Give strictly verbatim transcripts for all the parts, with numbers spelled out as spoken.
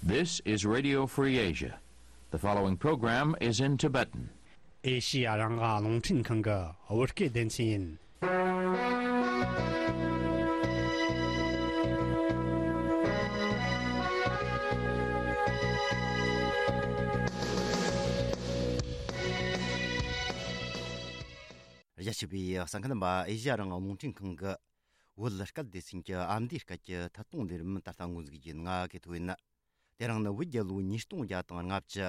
This is Radio Free Asia. The following program is in Tibetan. ཨེ་ཤི་ཡ་རང་དབང་རླུང་འཕྲིན་ཁང་གི་བོད་སྐད་སྡེ་ཚན་ཡིན། རྒྱ་ཆེ་བའི་གསན་མཁན་རྣམ་པ། ཨེ་ཤི་ཡ་རང་དབང་རླུང་འཕྲིན་ཁང་གི་བོད་སྐད་སྡེ་ཚན་གྱི་ཨ་མདོའི་སྐད་ཀྱི་ཐད་གཏོང་ལས་རིམ་ད་ལྟ་འགོ་འཛུགས་རྒྱུ་ཡིན། ང་གི་ཐོ་ཡིན། དེ་རིང་ནི་བོད་རྒྱལ་ལོ་ཉིས་སྟོང་བརྒྱ་དང་ལྔ་བཅུ།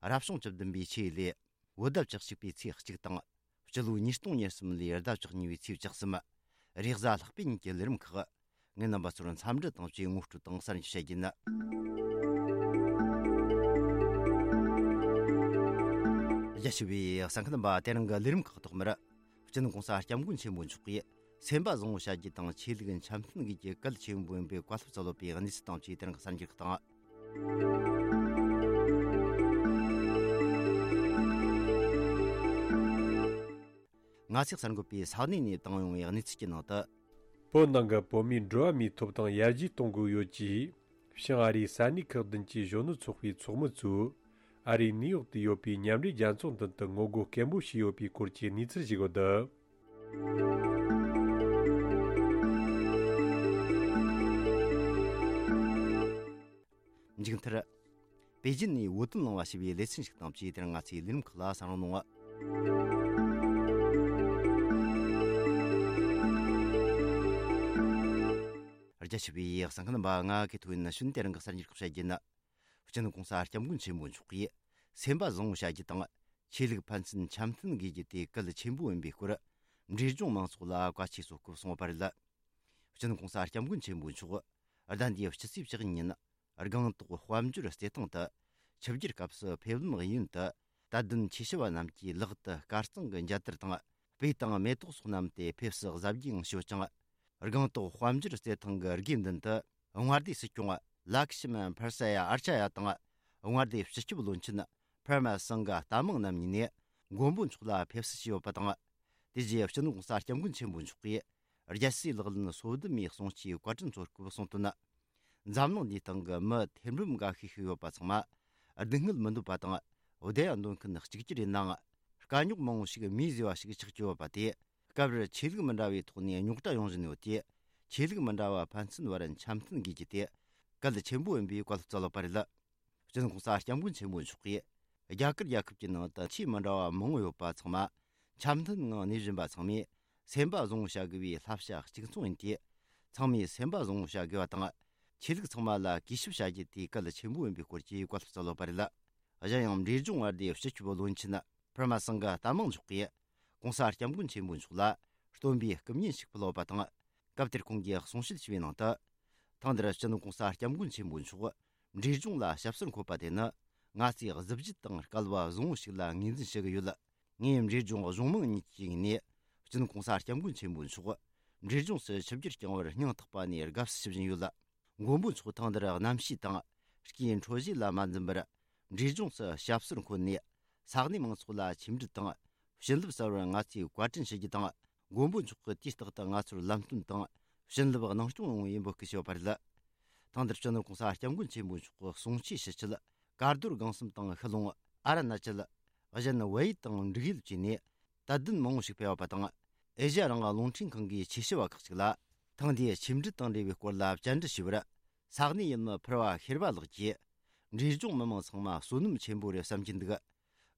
རབ་བྱུང་བཅུ་བདུན་པའི་ཆུ་ཡོས་ལོའི་བོད་ཟླ་བཅུ་གཅིག་པའི་ཚེས་གཅིག་དང་། སྤྱི་ལོ་ཉིས་སྟོང་ཉེར་གསུམ་ལོའི་ཟླ་བཅུ་གཉིས་པའི་ཚེས་བཅུ་གསུམ། རེས་གཟའ་ལྷག་པའི་ཉིན་གྱི་ལས་རིམ་ཁག་ངས་རྣམ་པ་ཚོར་འཚམས་འདྲི་དང་བཅས་ངོ་སྤྲོད་དང་གསར་འགྱུར་བཤད་རྒྱུ་ཡིན། རྒྱ་ཆེ་བའི་གསན་མཁན་རྣམ་པ། དེ་རིང་གི་ལས་རིམ་ཁག་ཐོག་མར། སྤྱི་ནོར་༸གོང་ས་༸སྐྱབས་མགོན་ཆེན་པོ་མཆོག་གིས་སེམས་པ་བཟང་བོ་བྱ་རྒྱུ་དང་ཆོས་ལུགས་འཆམ་མཐུན་དགོས་རྒྱུ་གལ་ཆེན་པོ་ཡིན་པའི་བཀའ་སློབ་སྩལ་ཡོད་པའི་གནས་ཚུལ་དང་བཅས་དེ་རིང་གི་གསར་འགྱུར་ཁག་དང་། ང་ཚོས་གསར་འགོད་པས་ས་གནས་ནས་བཏང་ཡོང་བའི་གནས་ཚུལ་གྱི་ནང་དུ། བོད་ནང་གི་བོད་མིའི་འགྲོ་བ་མིའི་ཐོབ་ཐང་ཡར་རྒྱས་གཏོང་དགོས་ཡོད་ཅེས། བྱང་ཨ་རིའི་ས་གནས་ཁག་བདུན་གྱི་གཞོན་ནུ་ཚོགས་པའི་ཚོགས་མི་ཚོས། ཨ་རིའི་ནིའུ་ཡོག་ཏུ་ཡོད་པའི་མཉམ་འབྲེལ་རྒྱལ་ཚོགས་མདུན་དུ་ངོ་རྒོལ་སྐད་འབོད་བྱས་ཡོད་པའི་སྐོར་གྱི་གནས་ཚུལ་ཞིག་ཡོད། མཇུག་མཐར། པེ་ཅིན་ནས་བོད་དོན་གླེང་བ་ཞེས་པའི་ལེ་ཚན་ཞིག་དང་བཅས་དེར་ང་ཚོའི་ལས་རིམ་ཁག་ལ་གསན་རོགས་གནང་། རྒྱ་ཆེ་བའི་གསན་མཁན་རྣམ་པ། ང་གི་ཐོ་ཡིན། ན་ཤུན་དེ་རིང་གི་གསར་འགྱུར་ཁག་བཤད་རྒྱུ་ཡིན། སྤྱི་ནོར་༸གོང་ས་༸སྐྱབས་མགོན་ཆེན་པོ་མཆོག་གིས་སེམས་པ་བཟང་བོ་བྱ་རྒྱུ་དང་། ཆོས་ལུགས་ཕན་ཚུན་འཆམ་མཐུན་དགོས་རྒྱུ་དེ་གལ་ཆེན་པོ་ཡིན་པའི་སྐོར། འབྲས་ལྗོངས་མང་ཚོགས་ལ་བཀའ་ཆོས་སྩལ་སྐབས་གསུངས་པ་རེད། སྤྱི་ནོར་༸གོང་ས་༸སྐྱབས་མགོན་ཆེན་པོ་མཆོག་ཟླ་འདིའི་སྤྱི་ཚེས་བཅུ་གཉིས་ཉིན། སྒང་ཏོག་དཔལ་འབྱོར་རྩེད་ཐང་དུ། ཆིབས་བསྒྱུར་སྐབས་སུ་ཕེབས་ལམ་གཡས་གཡོན་དུ། དད་ལྡན་ཆོས་ཞུ་བ་རྣམས་ཀྱིས་ལག་ཏུ་དཀར་གཙང་གི་འཇའ་དར་དང་། སྤོས་དང་མེ་ཏོག་སོགས་བསྣམས་ཏེ་ཕེབས་བསུ་གཟབ་རྒྱས་ངང་ཞུས་ཀྱང་། སྒང་ཏོག་དཔལ་འབྱོར་རྩེད་ཐང་གི་དགེ་འདུན་དུ། མངའ་སྡེ་སྲིད་སྐྱོང་ལ་ཁི་ཤི་མན་ཕར་ས་ཡ་ཨར་ཆ་ཡ་དང་། མངའ་སྡེའི་སྤྱི་ཁྱབ་བློན་ཆེན་པར་མ་སང་ག་ཏ་མང་རྣམ་གཉིས་ནས་མགོན་པོ་མཆོག་ལ་ཕེབས་བསུ་བྱས་ཡོད་པ་དང་། དེ་རྗེས་སྤྱི་ནོར་༸གོང་ས་༸སྐྱབས་མགོན་ཆེན་པོ་མཆོག་གིས་རྒྱལ་སྲས་ལག་ལེན་སོ་བདུན་མའི་གསུང་ཆོས་བཀའ་དྲིན་ཚོར་སྐབས་གསུངས་དོན། འཛམ་གླིང་འདིའི་སྟེང་གི་མི་ཐེར་འབུམ་འགའ་ཤས་ཤིག་ཡོད་པ་ཚང་མ་སྡུག་བསྔལ་མི་འདོད་པ་དང་། བདེ་ཡག་འདོད་མཁན་གཅིག་གྱུར་ཡིན་ནའང་། དཀའ་རྙོག་མང་བོ་ཞིག་མིས་བཟོས་པ་ཞིག་ཆགས་ཀྱི་ཡོད་པ་དེ། སྐབས་རེར་ཆོས་ལུགས་མི་འདྲ་བའི་ཐོག་ནས་རྙོག་དྲ་ཡོང་བཞིན་ཡོད་དེ། ཆོས་ལུགས་མི་འདྲ་བ་ཕན་ཚུན་བར་འཆམ་མཐུན་དགོས་རྒྱུ་དེ་གལ་ཆེན་པོ་ཡིན་པའི་བཀའ་སློབ་སྩལ་ཡོད་པ་རེད། སྤྱི་ནོར་༸གོང་ས་༸སྐྱབས་མགོན་ཆེན་པོ་མཆོག་གིས། རྒྱ་གར་རྒྱལ་ཁབ་ཀྱི་ནང་དུ་ཆོས་མི་འདྲ་བ་མང་བོ་ཡོད་པ་ཚང་མ་འཆམ་མཐུན་ངང་གནས་བཞིན་པ་ཚང་མས་སེམས་པ་བཟང་བོ་བྱ་དགོས་པའི་བསླབ་བྱ་གཅིག་མཚུངས་ཡིན་ཏེ། ཚང་མས་སེམས་པ་བཟང་བོ་བྱ་དགོས་པ་དང་། ཆོས་ལུགས་ཚང་མ་ལ་གུས་ཞབས་བྱ་རྒྱུ་དེ་གལ་ཆེན་པོ་ཡིན་པའི་སྐོར་གྱི་བཀའ་སློབ་སྩལ་ཡོད་པ་རེད། གཞན་ཡང་། འབྲས་ལྗོངས་མངའ་སྡེའི་སྤྱི་ཁྱབ་བློན་ཆེན་པར་མ་སང་ག་ཏ་མང་མཆོག་གིས། ༸གོང་ས་༸སྐྱབས་མགོན་ཆེན་པོ་མཆོག་ལ་སྟོན་པའི་སྐུ་བརྙན་ཞིག་ཕུལ་ཡོད་པ་དང་། སྐབས་དེར་ཁོང་གིས་གསུང་བཤད་བྱས་པའི་ནང་དུ། ཐེངས་འདིར་སྤྱི་ནོར་༸གོང་ས་༸སྐྱབས་མགོན་ཆེན་པོ་མཆོག་འབྲས་ལྗོངས་ལ་ཞབས་སོར་འཁོད་པ་དེ་ནི། ང་ཚོས་གཟི་བརྗིད་དང་སྐལ་བ་བཟང་བོ་ཞིག་ལ་ངོས་འཛིན་ཞུ་གི་ཡོད། ངས་འབྲས་ལྗོངས་གཞུང་མང་གཉིས་ཀྱི་ངོས་ནས། སྤྱི་ནོར་༸གོང་ས་༸སྐྱབས་མགོན་ཆེན་པོ་མཆོག་འབྲས་ལྗོངས་སུ་ཆིབས་བསྒྱུར་བསྐྱངས་པར་སྙིང་ཐག་པ་ནས་དགའ་བསུ་ཞུ་བཞིན་ཡོད། མགོན་པོ་མཆོག་ཐེངས་འདིར་གནམ་གཤིས་དང་། སྐྱེ་འཕྲོད་བཞི་ལ་མ་འཛེམས་པར། འབྲས་ལྗོངས་སུ་ཞབས་སོར་འཁོད་ནས། ས་གནས་མང་ཚོགས་ལ་ཆིབས་འགྲུལ་དང་། བྱིན་རླབས་གསར་བར་ང་ཚོས་བཀའ་དྲིན་ཞུ་རྒྱུ་དང་། མགོན་པོ་མཆོག་གིས་དུས་རྟག་ཏུ་ང་ཚོར་ལམ་སྟོན་དང་། བྱིན་རླབས་གནང་སྐྱོང་ཡོང་བའི་འབོད་སྐུལ་ཞུས་པ་རེད། ཐེངས་འདིར་སྤྱི་ནོར་༸གོང་ས་༸སྐྱབས་མགོན་ཆེན་པོ་མཆོག་གི་གསུང་ཆོས་ཞུ་ཆེད། དཀར་རྡོར་སྒང་གསུམ་དང་ཤུལ་ལུང་། ཨ་རུ་ན་ཅལ། གཞན་བལ་ཡུལ་དང་འབྲུག་ཡུལ་བཅས་ནས། དད་ལྡན་མང་བོ་ཞིག་ཕེབས་པ་དང་། ཨེ་ཤེ་ཡ་རང་དབང་རླུང་འཕྲིན་ཁང་གི་ཆོས་ཞུ་བ་ཁག་ཅིག་ལ། ཐེངས་འདིའི་ཆིབས་འགྲུལ་དང་འབྲེལ་བའི་སྐོར་ལ་བཅར་འདྲི་ཞུས་པར། ས་གནས་ཡུལ་མི་ཕུར་བ་ཤེར་བ་ལགས་ཀྱིས། འབྲས་ལྗོངས་མི་མང་ཚང་མ་བསོད་ནམས་ཆེན་པོ་རེད་བསམ་གྱི་འདུག།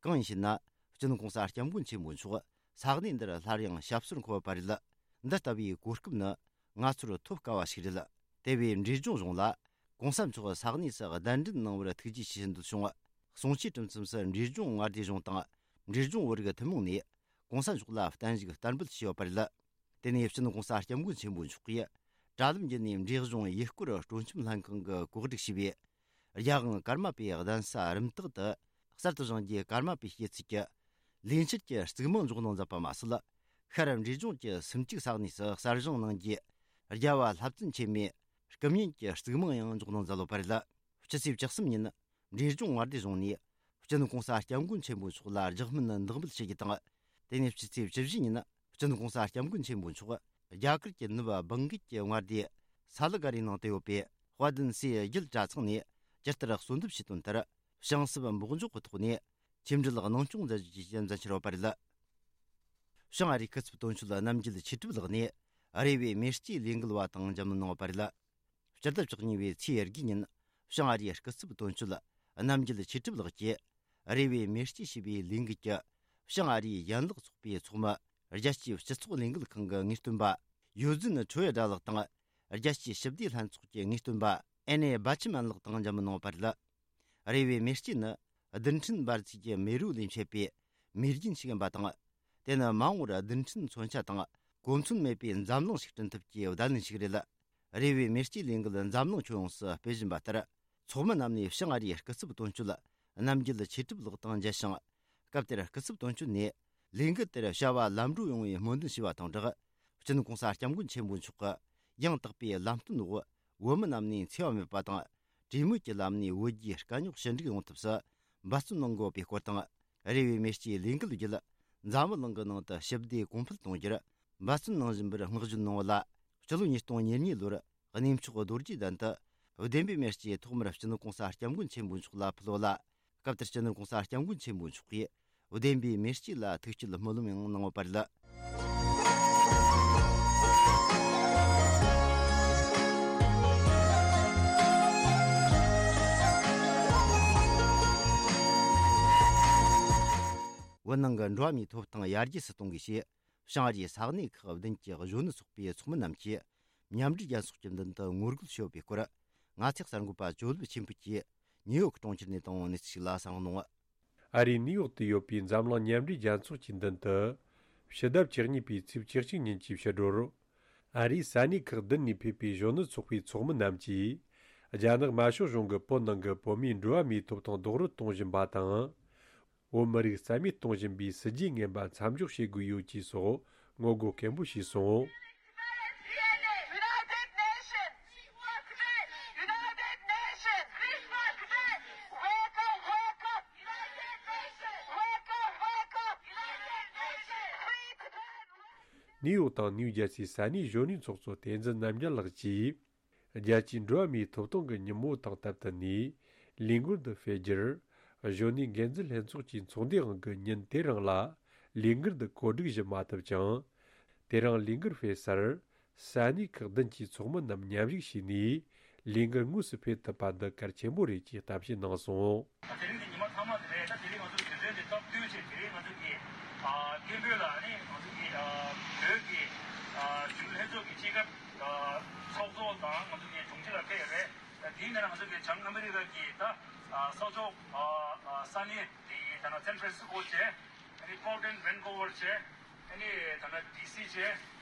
གང་ཡིན་ཞེ་ན། སྤྱི་ནོར་༸གོང་ས་༸སྐྱབས་མགོན་ཆེན་པོ་མཆོག་ས་གནས་འདིར་སླར་ཡང་ཞབས་སོར་འཁོད་པ་རེད། འདི་ལྟ་བུའི་གོ་སྐབས་ནི་ང་ཚོར་ཐོབ་དཀའ་བ་ཞིག་རེད། དེ་བས་འབྲས་ལྗོངས་གཞུང་ལ་༸གོང་ས་མཆོག་ས་གནས་སུ་གདན་འདྲེན་གནང་བར་ཐུགས་རྗེ་ཆེ་ཞུ་འདོད་བྱུང་། གསུང་ཆོས་གྲུབ་མཚམས་སུ་འབྲས་ལྗོངས་མངའ་སྡེ་གཞུང་དང་། འབྲས་ལྗོངས་བོད་རིགས་ཐུན་མོང་ནས་༸གོང་ས་མཆོག་ལ་བརྟན་བཞུགས་བསྟར་འབུལ་ཞུས་ཡོད་པ་རེད། དེ་ནས་སྤྱི་ནོར་༸གོང་ས་༸སྐྱབས་མགོན་ཆེན་པོ་མཆོག་གིས་དྲ་ལམ་བརྒྱུད་ནས་འབྲས་ལྗོངས་ཡུལ་སྐོར་སྤྲོ་འཆམ་ལྷན་ཁང་གི་གོ་སྒྲིག་བྱས་པའི་རྒྱལ་དབང་ཀརྨ་པའི་གདན་ས་རིམ་བཏགས་དུ་གསར་དུ་བཞེངས་རྒྱུའི་ཀརྨ་པའི་སྐྱེད་ཚལ་གྱི་ལས་འཆར་གྱི་གཙིགས་མང་འཇོག་གནང་མཛད་པ་མ་ཟད། ཤར་འབྲས་ལྗོངས་ཀྱི་སུམ་བརྩེགས་ས་གནས་སུ་གསར་བཞེངས་གནང་རྒྱུའི་རྒྱལ་བ་ལྷ་བཙུན་ཆེན་མོའི་སྐུ་བརྙན་གྱི་གཙིགས་མང་ཡང་འཇོག་གནང་མཛད་ཡོད་པ་རེད། སྤྱི་ཚེས་བཅུ་གསུམ་ཉིན། འབྲས་ལྗོངས་མངའ་སྡེ་གཞུང་ནས་སྤྱི་ནོར་༸གོང་ས་༸སྐྱབས་མགོན་ཆེན་པོ་མཆོག་ལ་རྒྱག་སྨོན་འདེགས་འབུལ་ཞུ་རྒྱུ་དང་། དེ་ནས་སྤྱི་ཚེས་བཅུ་བཞི་ཉིན། སྤྱི་ནོར་༸གོང་ས་༸སྐྱབས་མགོན་ཆེན་པོ་མཆོག་རྒྱ་གར་གྱི་ནུབ་བང་གི་ཀྱི་མངའ་སྡེ་ས་ལི་ག་རིའི་ནང་དུ་ཡོད་པའི་དཔལ་ལྡན་སྲས་རྒྱལ་གྲྭ་ཚང་ནས་ ཇི་ལྟར་གསོལ་འདེབས་བྱས་དོན་ལྟར། བྱང་སྲིབ་འབོག་འཇོག་གི་ཐོག་ནས་ཆིབས་འགྲུལ་གནང་སྐྱོང་མཛད་རྒྱུ་བཅས་མཛད་འཆར་ཡོད་པ་རེད། བྱང་ཨ་རིའི་སྐུ་ཚབ་དོན་གཅོད་རྣམ་རྒྱལ་ཆོས་གྲུབ་ལགས་ནས་རེ་བའི་མེ་ལྕེའི་ལས་འགུལ་བ་དང་མཇལ་མོལ་གནང་ཡོད་པ་རེད། སྤྱི་ཟླ་བཅུ་གཉིས་པའི་ཚེས་དགུའི་ཉིན་བྱང་ཨ་རིའི་སྐུ་ཚབ་དོན་གཅོད་རྣམ་རྒྱལ་ཆོས་གྲུབ་ལགས་ཀྱིས་རེ་བའི་མེ་ལྕེ་ཞེས་པའི་ལས་འགུལ་གྱི་བྱང་ཨ་རིའི་ཡན་ལག་ཚོགས་པའི་ཚོགས་མི། རྒྱལ་སྤྱིའི་སྤྱི་ཚོགས་ལས་འགུལ་ཁང་གི་ངེས་སྟོན་པ་ཡོ་ཛིན་ཁྲོ་ཡ་སྒྲ་ལགས་དང་། རྒྱལ་སྤྱིའི་ཞི་བདེ་ལྷན་ཚོགས་ཀྱི་ངེས་སྟོན་པ་ཨེ་ནེ་སྦ་ཆི་མན་ལགས་དང་མཇལ་མོལ་གནང་བ་རེད། རེ་བའི་མེ་ལྕེ་ནི་རྡུལ་ཕྲན་འབར་རྫས་ཀྱི་མེ་རོ་ལས་མཆེད་པའི་མེ་རྒྱུན་ཞིག་ཡིན་པ་དང་། དེ་ནི་མ་འོངས་པར་རྡུལ་ཕྲན་མཚོན་ཆ་དང་གོ་མཚོན་མེད་པའི་འཛམ་གླིང་ཞིག་བསྐྲུན་ཐབས་ཀྱི་བརྡ་ལན་ཞིག་རེད། རེ་བའི་མེ་ལྕེའི་ལས་འགུལ་འཛམ་གླིང་ཁྱོན་ཡོངས་སུ་སྤེལ་བཞིན་པ་ལྟར། ཚོགས་མི་རྣམས་ནས་བྱང་ཨ་རིའི་སྐུ་ཚབ་དོན་གཅོད་རྣམ་རྒྱལ་ཆོས་གྲུབ་ལགས་དང་མཇལ་ཞིང་། སྐབས་དེར་སྐུ་ཚབ་དོན་གཅོད་ནས་ལས་འགུལ་དེར་བྱ་བ་ལམ་འགྲོ་ཡོང་བའི་སྨོན་འདུན་ཞུས་པ་དང་སྦྲགས། སྤྱི་ནོར་གོང་ས་སྐྱབས་མགོན་ཆེན་པོ་མཆོག་གི་ཡང་དག་པའི་ལམ་སྟོན་འོག་བོད་མི་རྣམས་ནས་འཚེ་བ་མེད་པ་དང་། གྲོས་མོལ་གྱི་ལམ་ནས་བོད་རྒྱའི་དཀའ་རྙོག་ཞི་འགྲིག་ཡོང་ཐབས་སུ་འབད་བརྩོན་གནང་དགོས་པའི་སྐོར་དང་། རེ་བའི་མེ་ལྕེའི་ལས་འགུལ་བརྒྱུད་འཛམ་བུ་གླིང་གི་ནང་དུ་ཞི་བདེ་གོང་འཕེལ་གཏོང་རྒྱུར་འབད་བརྩོན་གནང་བཞིན་པར་བསྔགས་བརྗོད་གནང་བ་ལ། སྤྱི་ལོ་ཉིས་སྟོང་ཉེར་གཉིས་ལོར་གནས་མཆོག་རྡོ་རྗེ་གདན་དུ་བདེན་པའི་མེ་ལྕེ་ཐོག་མར་སྤྱི་ནོར་གོང་ས་སྐྱབས་མགོན་ཆེན་པོ་མཆོག་ལ་ཕུལ་བ་ལ། སྐབས་དེར་སྤྱི་ནོར་གོང་ས་སྐྱབས་མགོན་ཆེན་པོ་མཆོག་གིས་བདེན་པའི་མེ་ལྕེ་ལ་ཐུགས་བསྐྱེད་སྨོན་ལམ་ཡང་གནང་ཡོད་པ་རེད། བོད་ནང་གི་འགྲོ་བ་མིའི་ཐོབ་ཐང་ཡར་རྒྱས་སུ་གཏོང་དགོས་ཞེས། བྱང་ཨ་རིའི་ས་གནས་ཁག་བདུན་གྱི་གཞོན་ནུ་ཚོགས་པའི་ཚོགས་མི་རྣམས་ཀྱིས་མཉམ་འབྲེལ་རྒྱལ་ཚོགས་ཀྱི་མདུན་དུ་ངོ་རྒོལ་ཞུས་པའི་སྐོར། ང་ཚོའི་གསར་འགོད་པ་ཇོ་ལེབ་ཆོས་འཕེལ་གྱིས་ནིའུ་ཡོག་གྲོང་ཁྱེར་ནས་བཏང་བའི་གནས་ཚུལ་ཞིག་ལ་གསན་གནང་། ཨ་རིའི་ནིའུ་ཡོག་ཏུ་ཡོད་པའི་འཛམ་གླིང་མཉམ་འབྲེལ་རྒྱལ་ཚོགས་ཀྱི་མདུན་དུ། ཕྱི་ཟླ་བཅུ་གཉིས་པའི་ཚེས་བཅུ་གཅིག་ཉིན་གྱི་ཕྱི་དྲོར། ཨ་རིའི་ས་གནས་ཁག་བདུན་ནས་ཕེབས་པའི་གཞོན་ནུ་ཚོགས་པའི་ཚོགས་མི་རྣམས་ཀྱིས། རྒྱ་ནག་དམར་ཤོག་གཞུང་གིས་བོད་ནང་གི་བོད་མིའི་འགྲོ་བ་མིའི་ཐོབ་ཐང་རྡོག་རོལ་གཏོང་བཞིན་པ་དང་། བོད་མི་རིགས་རྩ་མེད་གཏོང་བཞིན་པའི་སྲིད་ཇུས་ངན་པ་མཚམས་འཇོག་བྱེད་དགོས་ཡོད་ཅེས་སོགས་ངོ་རྒོལ་སྐད་འབོད་བྱས་སོང་། ནིའུ་ཡོག་དང་ནིའུ་ཇར་སིའི་ས་གནས་གཞོན་ནུའི་ཚོགས་གཙོ་བསྟན་འཛིན་རྣམ་རྒྱལ་ལགས་ཀྱིས། རྒྱལ་སྤྱིའི་འགྲོ་བ་མིའི་ཐོབ་ཐང་གི་ཉིན་མོ་དང་སྟབས་བསྟུན་ནས་ལས་འགུལ་འདི་སྤེལ་རྒྱུར། གཞོན་ནུའི་འགན་འཛིན་ལྷན་ཚོགས་ཀྱི་ཚོགས་འདུའི་དབང་གིས་ཉིན་དེ་རིང་ལ་ལས་འགུལ་འདི་གོ་སྒྲིག་ཞུ་མ་ཐུབ་ཀྱང་། དེ་རིང་ལས་འགུལ་སྤེལ་སར་ས་གནས་ཁག་བདུན་གྱི་ཚོགས་མི་རྣམས་མཉམ་ཞུགས་བྱས་ནས་ལས་འགུལ་དངོས་སུ་སྤེལ་ཐུབ་པ་འདི་གལ་ཆེན་པོ་རེད་ཅེས་གཏམ་བཤད་གནང་སོང་། དེ་རིང་གི་ཉི་མ་ཐ་མ་དེ་རེད། ད་དེ་རིང་ང་ཚོ་གི་དུས་ཚོད་འདི་སྟབས་བསྟུན་བྱས། དེ་རིང་ང་ཚོ་གི་ཨ་སྐད་འབོད་ལ་ནི་ང་ཚོ་གི་ཨ་བོད་ཀྱི་ཨ་གཞོན་ནུ་ལྷན་ཚོགས་ཀྱི་སྤྱི་ཁྱབ་ཨ་ཚོགས་གཙོ་དང་ང་ཚོ་གི་དྲུང་ཆེ་ལ་ཕེབས་ཡོད་རེད། ད་དེའི་ནང་ང་ཚོ་གི་བྱང་ཨ་མི་རི་ཀ་གི་ད་ཨ་ས་ཕྱོགས་ཨ་ཨ་ས་གནས་དེ་ད་ན་སན་ཧྥ་རན་སི་ཀོ་བྱས། ཨ་ནི་པོར་ཊན་ཝན་ཀོ་ཝར་བྱས། ཨ་ནི་ད་ལྟ་ཌི་སི་བྱས།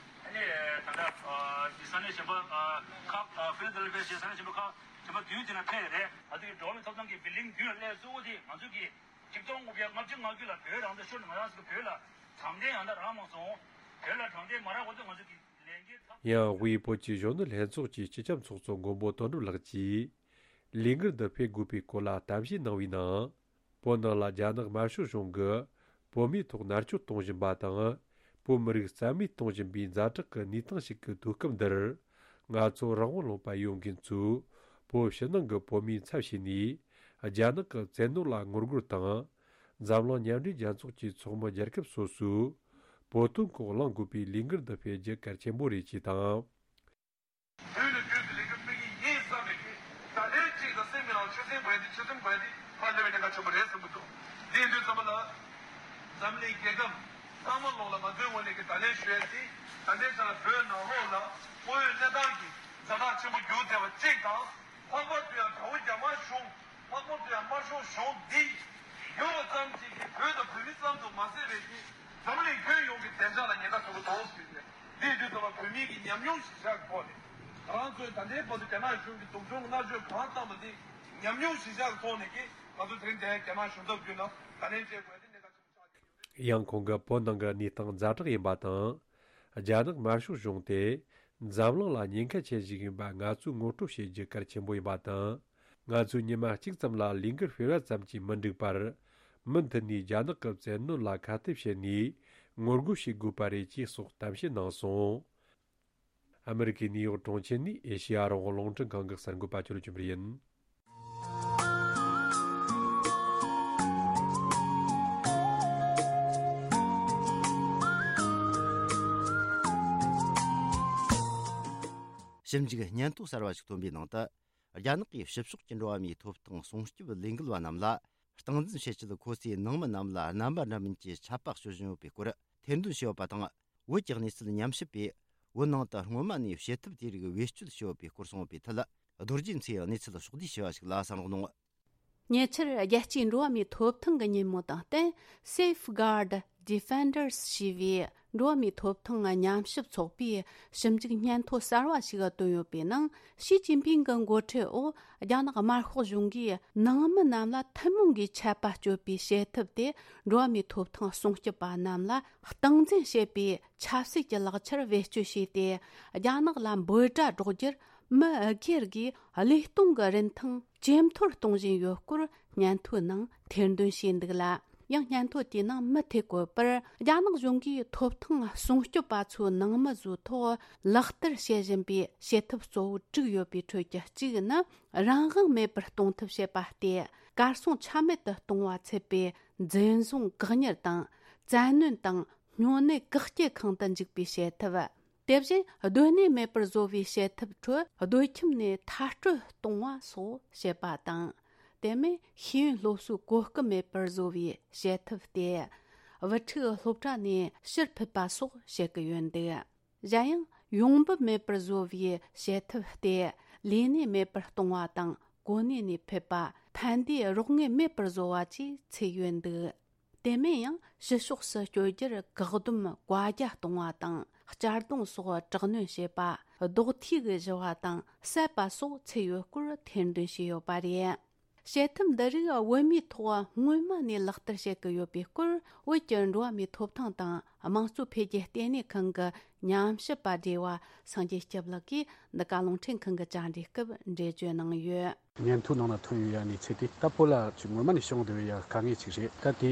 ཨ་ནི་ད་ལྟ་ཨ་ས་གནས་གཞན་པ་ཨ་ཁག་ཨ་ཕི་ལ་དེལ་ཕི་ཡ་བྱས། ས་གནས་གཞན་པ་ཁག་གཞན་པ་བདུན་དེ་ན་ཕེབས་རེད། ང་ཚོ་གི་འགྲོ་བ་མིའི་ཐོབ་ཐང་གི་བི་ལིང་བདུན་ལ་སླེབས་གཙོ་བོ་དེ་ང་ཚོ་གི་ཆིག་སྟོང་དགུ་བརྒྱ་ལྔ་བཅུ་ང་དགུ་ལ་བོད་རང་བཙན་ཤོར་ནས་ང་རང་ཚོ་བོད་ལ་དྲང་བདེན་ཡང་དག་རག་མ་སོང་། བོད་ལ་དྲང་བདེན་མ་རག་གོང་དུ་ང་ཚོ་གི་ལས་འགན་ཚབས། ཡང་དབུས་བོད་ཀྱི་གཞོན་ནུ་ལྷན་ཚོགས་ཀྱི་སྤྱི་ཁྱབ་ཚོགས་གཙོ་མགོན་པོ་དོན་གྲུབ་ལགས་ཀྱིས། ལས་འགུལ་འདི་སྤེལ་དགོས་པའི་སྐོར་ལ་གཏམ་བཤད་གནང་བའི་ནང་། བོད་ནང་ལ་རྒྱ་ནག་དམར་ཤོག་གཞུང་གིས་བོད་མིའི་ཐོག་མནར་གཅོད་གཏོང་བཞིན་པ་དང་། བོད་མི་རིགས་རྩ་མེད་གཏོང་བཞིན་པའི་ཛ་དྲག་གི་གནས་སྟངས་ཤིག་གི་དུས་སྐབས་འདིར། ང་ཚོ་རང་དབང་ལུང་པ་ཡོད་མཁན་ཚོས་བོད་ཕྱི་ནང་གི་བོད་མིའི་ཚབ་བྱས་ནས། རྒྱ་ནག་གི་བཙན་གནོན་ལ་ངོ་རྒོལ་དང་། འཛམ་གླིང་མཉམ་འབྲེལ་རྒྱལ་ཚོགས་ཀྱི་ཚོགས་མི་རྒྱལ་ཁབ་སོ་སོས་བོད་དོན་སྐོར་གླེང་དགོས་པའི་ལས་འགུལ་འདི་སྤེལ་རྒྱུ་གལ་ཆེན་པོ་རེད་ཅེས་དང་། དུས་ནས་དུས་སུ་ལས་འགུལ་སྤེལ་གྱི་ཡིན་བསམ་པའི་གི་ད་ལན་གཅིག་དང་སེམས་ཀྱི་ནང་ཆུ་སྲིན་འབར་ཏེ་ཆུ་སྲིན་འབར་ཏེ་ཕར་སླེབས་པའི་གནད་འགག་ཆེན་པོ་རེད་བསམ་གྱི་འདུག་དེ་ཡིན་དུས་ཙམ་པ་ལ་འཛམ་གླིང་རྒྱལ་ཁབ་ཚང་མ་ལོག་ལ་ང་ཚོའི་ངོས་ནས་ཀྱི་ད་ལན་ཞུ་ཡ་དེ། ད་ལྟའི་ཆ་ལ་བོད་ནང་ལོགས་ལ་དངོས་ཡོད་གནས་སྟངས་ཀྱི་ཛ་དྲག་ཆེན་པོ་འགྱུར་བསྡད་པ་གཅིག་དང་། ལྷག་པར་དུ་ཡང་དགྲ་བོ་རྒྱ་དམར་གཞུང་། ལྷག་པར་དུ་ཡང་དམར་ཤོག་གཞུང་འདི་ཡོད་པ་ཙམ་གྱིས་ཀྱི་བོད་དང་བོད་མི་ཙམ་དུ་མ་ཟད་པའི་གི་འཛམ་གླིང་ཁྱོན་ཡོངས་ཀྱི་བདེ་འཇགས་ལ་ཉེན་ཁ་ཆེན་པོ་འདུག་ཟེར་ཏེ། འདི་དུས་ཙམ་པ་བོད་མི་གི་ཉམས་མྱོང་གཞིར་བཞག་གི་ཐོག་ནས། ང་རང་ཚོའི་ད་ལྟའི་བར་དུ་རྒྱ་ནག་གཞུང་གིས་སྡུག་སྦྱོང་མནར་གཅོད་གང་བཏང་བ་འདི་ཉམས་མྱོང་གཞིར་བཞག་གི་ཐོག་ནས་ཀྱི་ང་ཚོ་དེ་རིང་འདིར་རྒྱ་ནག་གཞུང་ཚབ་བརྒྱུད་ནས་ད་ལན་བྱེད་དགོས་ཡ་དེ་གནད་འགག་ཆེན་པོ་ཆགས་ཀྱི་ཡོད་རེད། ཡང་ཁོང་གིས་བོད་ནང་གི་གནས་སྟངས་ཛ་དྲག་ཡིན་པ་དང་། རྒྱ་ནག་དམར་ཤོག་གཞུང་དེ་འཛམ་གླིང་ལ་ཉེན་ཁ་ཆེན་ཞིག་ཡིན་པ་ང་ཚོས་ངོ་སྤྲོད་བྱེད་རྒྱུ་གལ་ཆེན་པོ་ཡིན་པ་དང་། ང་ཚོས་ཉི་མ་གཅིག་ཙམ་ལ་ལས་འགུལ་སྤེལ་བ་ཙམ་གྱིས་མི་འགྲིག་པར། མུ་མཐུད་ནས་རྒྱ་ནག་གི་བཙན་གནོན་ལ་ཁ་གཏད་བྱས་ནས་ངོ་རྒོལ་བྱེད་དགོས་པ་རེད་ཅེས་སོགས་གཏམ་བཤད་གནང་སོང་། ཨ་མི་རི་ཀའི་ནིའུ་ཡོག་གྲོང་ཁྱེར་ནས་ཨེ་ཤེ་ཡ་རང་དབང་རླུང་འཕྲིན་ཁང་གི་གསར་འགོད་པ་ཅོ་ལི་ཅུན་པར་ཡིན། ཞིབ་འཇུག་སྙན་ཐོ་གསར་བ་ཞིག་ཐོན་པའི་ནང་དུ། རྒྱ་ནག་གིས་ཕྱི་ཕྱོགས་ཀྱི་འགྲོ་བ་མིའི་ཐོབ་ཐང་སྲུང་སྐྱོབ་ལས་འགུལ་བ་རྣམས་ལ་སྟངས་འཛིན་བྱེད་ཆེད། ཁོ་ཚོས་ནང་མི་རྣམས་ལ་རྣམ་པ་འདྲ་མིན་གྱི་ཆད་པ་གཅོད་བཞིན་ཡོད་པའི་སྐོར་ཐེར་འདོན་བྱས་ཡོད་པ་དང་། བོད་ཀྱི་གནས་ཚུལ་ཉམས་ཞིབ་པས། བོད་ནང་དུ་སྔོན་མ་ནས་བྱེད་ཐབས་དེ་རིགས་བེད་སྤྱོད་བྱས་ཡོད་པའི་སྐོར་གསུངས་པའི་ཐད། རྡོ་རྗེ་མཚོས་གནས་ཚུལ་ཕྱོགས་བསྡུས་བྱས་པ་ཞིག་ལ་གསན་རོགས་གནང་། ཉེ་ཆར། རྒྱལ་སྤྱིའི་འགྲོ་བ་མིའི་ཐོབ་ཐང་གི་ཉིན་མོ་དང་བསྟུན། Safeguard Defenders ཞེས་པའི་འགྲོ་བ་མིའི་ཐོབ་ཐང་ཉམས་ཞིབ་ཚོགས་པས་ཞིབ་འཇུག་སྙན་ཐོ་གསར་བ་ཞིག་བཏོན་ཡོད་པའི་ནང་། ཞི་ཅིན་ཕིང་གི་འགོ་ཁྲིད་འོག་རྒྱ་ནག་དམར་ཤོག་གཞུང་གིས་ནང་མི་རྣམས་ལ་ཐུན་མོང་གི་ཆད་པ་གཅོད་པའི་བྱེད་ཐབས་དེ། འགྲོ་བ་མིའི་ཐོབ་ཐང་སྲུང་སྐྱོབ་པ་རྣམས་ལ་སྟངས་འཛིན་བྱེད་པའི་ཆབ་སྲིད་ཀྱི་ལག་ཆར་བེད་སྤྱོད་བྱས་ཏེ། རྒྱ་ནག་ལ་འབོད་སྒྲ་སྒྲོག་རྒྱུར་མི་སྒེར་གྱི་བློས་གཏོང་གི་རིན་ཐང་ཇེ་མཐོར་གཏོང་བཞིན་ཡོད་སྐོར་སྙན་ཐོའི་ནང་ཐེར་འདོན་བྱས་འདུག་ལ། ཡང་སྙན་ཐོ་དེའི་ནང་མུ་མཐུད་བཀོད་པར། རྒྱ་ནག་གཞུང་གིས་ཐོབ་ཐང་སྲུང་སྐྱོབ་པ་ཚོའི་ནང་མི་ཚོའི་ཐོག་ལག་བསྟར་བྱེད་བཞིན་པའི་བྱེད་ཐབས་གཙོ་བོ་དྲུག་ཡོད་པའི་ཁྲོད་ཀྱི་གཅིག་ནི། རང་དབང་མེད་པར་གཏོང་ཐབས་བྱེད་པ་སྟེ། གར་སོང་ཆ་མེད་དུ་གཏོང་བ་ཚུད་པའི་འཛིན་བཟུང་། བཀག་ཉར་དང་། བཙན་གནོན་དང་། སྨྱོ་ནད་བཀག་སྐྱིལ་ཁང་དུ་འཇུག་པའི་བྱེད་ཐབས། དེ་བཞིན་སྡོད་གནས་མེད་པར་བཟོ་བའི་བྱེད་ཐབས་ཁྲོད་སྡོད་ཁྱིམ་ནས་མཐར་སྐྲོད་གཏོང་བ་སོགས་བྱེད་པ་དང་། དེ་མིན་ཤེས་ཡོན་སློབ་གསོའི་གོ་སྐབས་མེད་པར་བཟོ་བའི་བྱེད་ཐབས་ཏེ། བུ་ཕྲུག་སློབ་གྲྭ་ནས་ཕྱིར་ཕུད་པ་སོགས་བྱེད་ཀྱི་ཡོད་འདུག། གཞན་ཡང་ཡོང་འབབ་མེད་པར་བཟོ་བའི་བྱེད་ཐབས་ཏེ། ལས་གནས་མེད་པར་གཏོང་བ་དང་། གོ་གནས་ནས་ཕུད་པ། ཕན་བདེའི་རོགས་དངུལ་མེད་པར་བཟོ་བ་བཅས་ཚུད་ཡོད་འདུག། དེ་མིན་ཡང་ཕྱི་ཕྱོགས་སུ་བསྐྱོད་རྒྱུར་བཀག་སྡོམ་བཀའ་རྒྱ་གཏོང་བ་དང་། གཅར་རྡུང་སོགས་དྲག་གནོན་བྱེད་པ། རྡོག་ཐིག་གིས་གཞུ་བ་དང་བསད་པ་སོགས་ཚུད་ཡོད་སྐོར་ཐེར་འདོན་བྱས་ཡོད་པ་རེད། བྱེད་ཐབས་འདི་རིགས་བོད་མིའི་ཐོག་སྔོན་མ་ནས་ལག་བསྟར་བྱེད་ཀྱི་ཡོད་པའི་སྐོར། བོད་ཀྱི་འགྲོ་བ་མིའི་ཐོབ་ཐང་དང་དམངས་གཙོ་འཕེལ་རྒྱས་ལྟེ་གནས་ཁང་གི་ཉམས་ཞིབ་པ་བགྲེས་པ་སངས་རྒྱས་སྐྱབས་ལགས་ཀྱིས་འདི་ག་རླུང་འཕྲིན་ཁང་གི་བཅར་འདྲིའི་སྐབས་འགྲེལ་བརྗོད་གནང་ཡོད། སྙན་ཐོའི་ནང་ན་ཐོན་ཡོད་ཡ་གནས་ཚུལ་དེ། ད་བོད་ལ་ཅིག་སྔོན་མ་ནས་བྱུང་བསྡད་ཡ་དཀའ་ངལ་ཅིག་རེད། ད་དེ་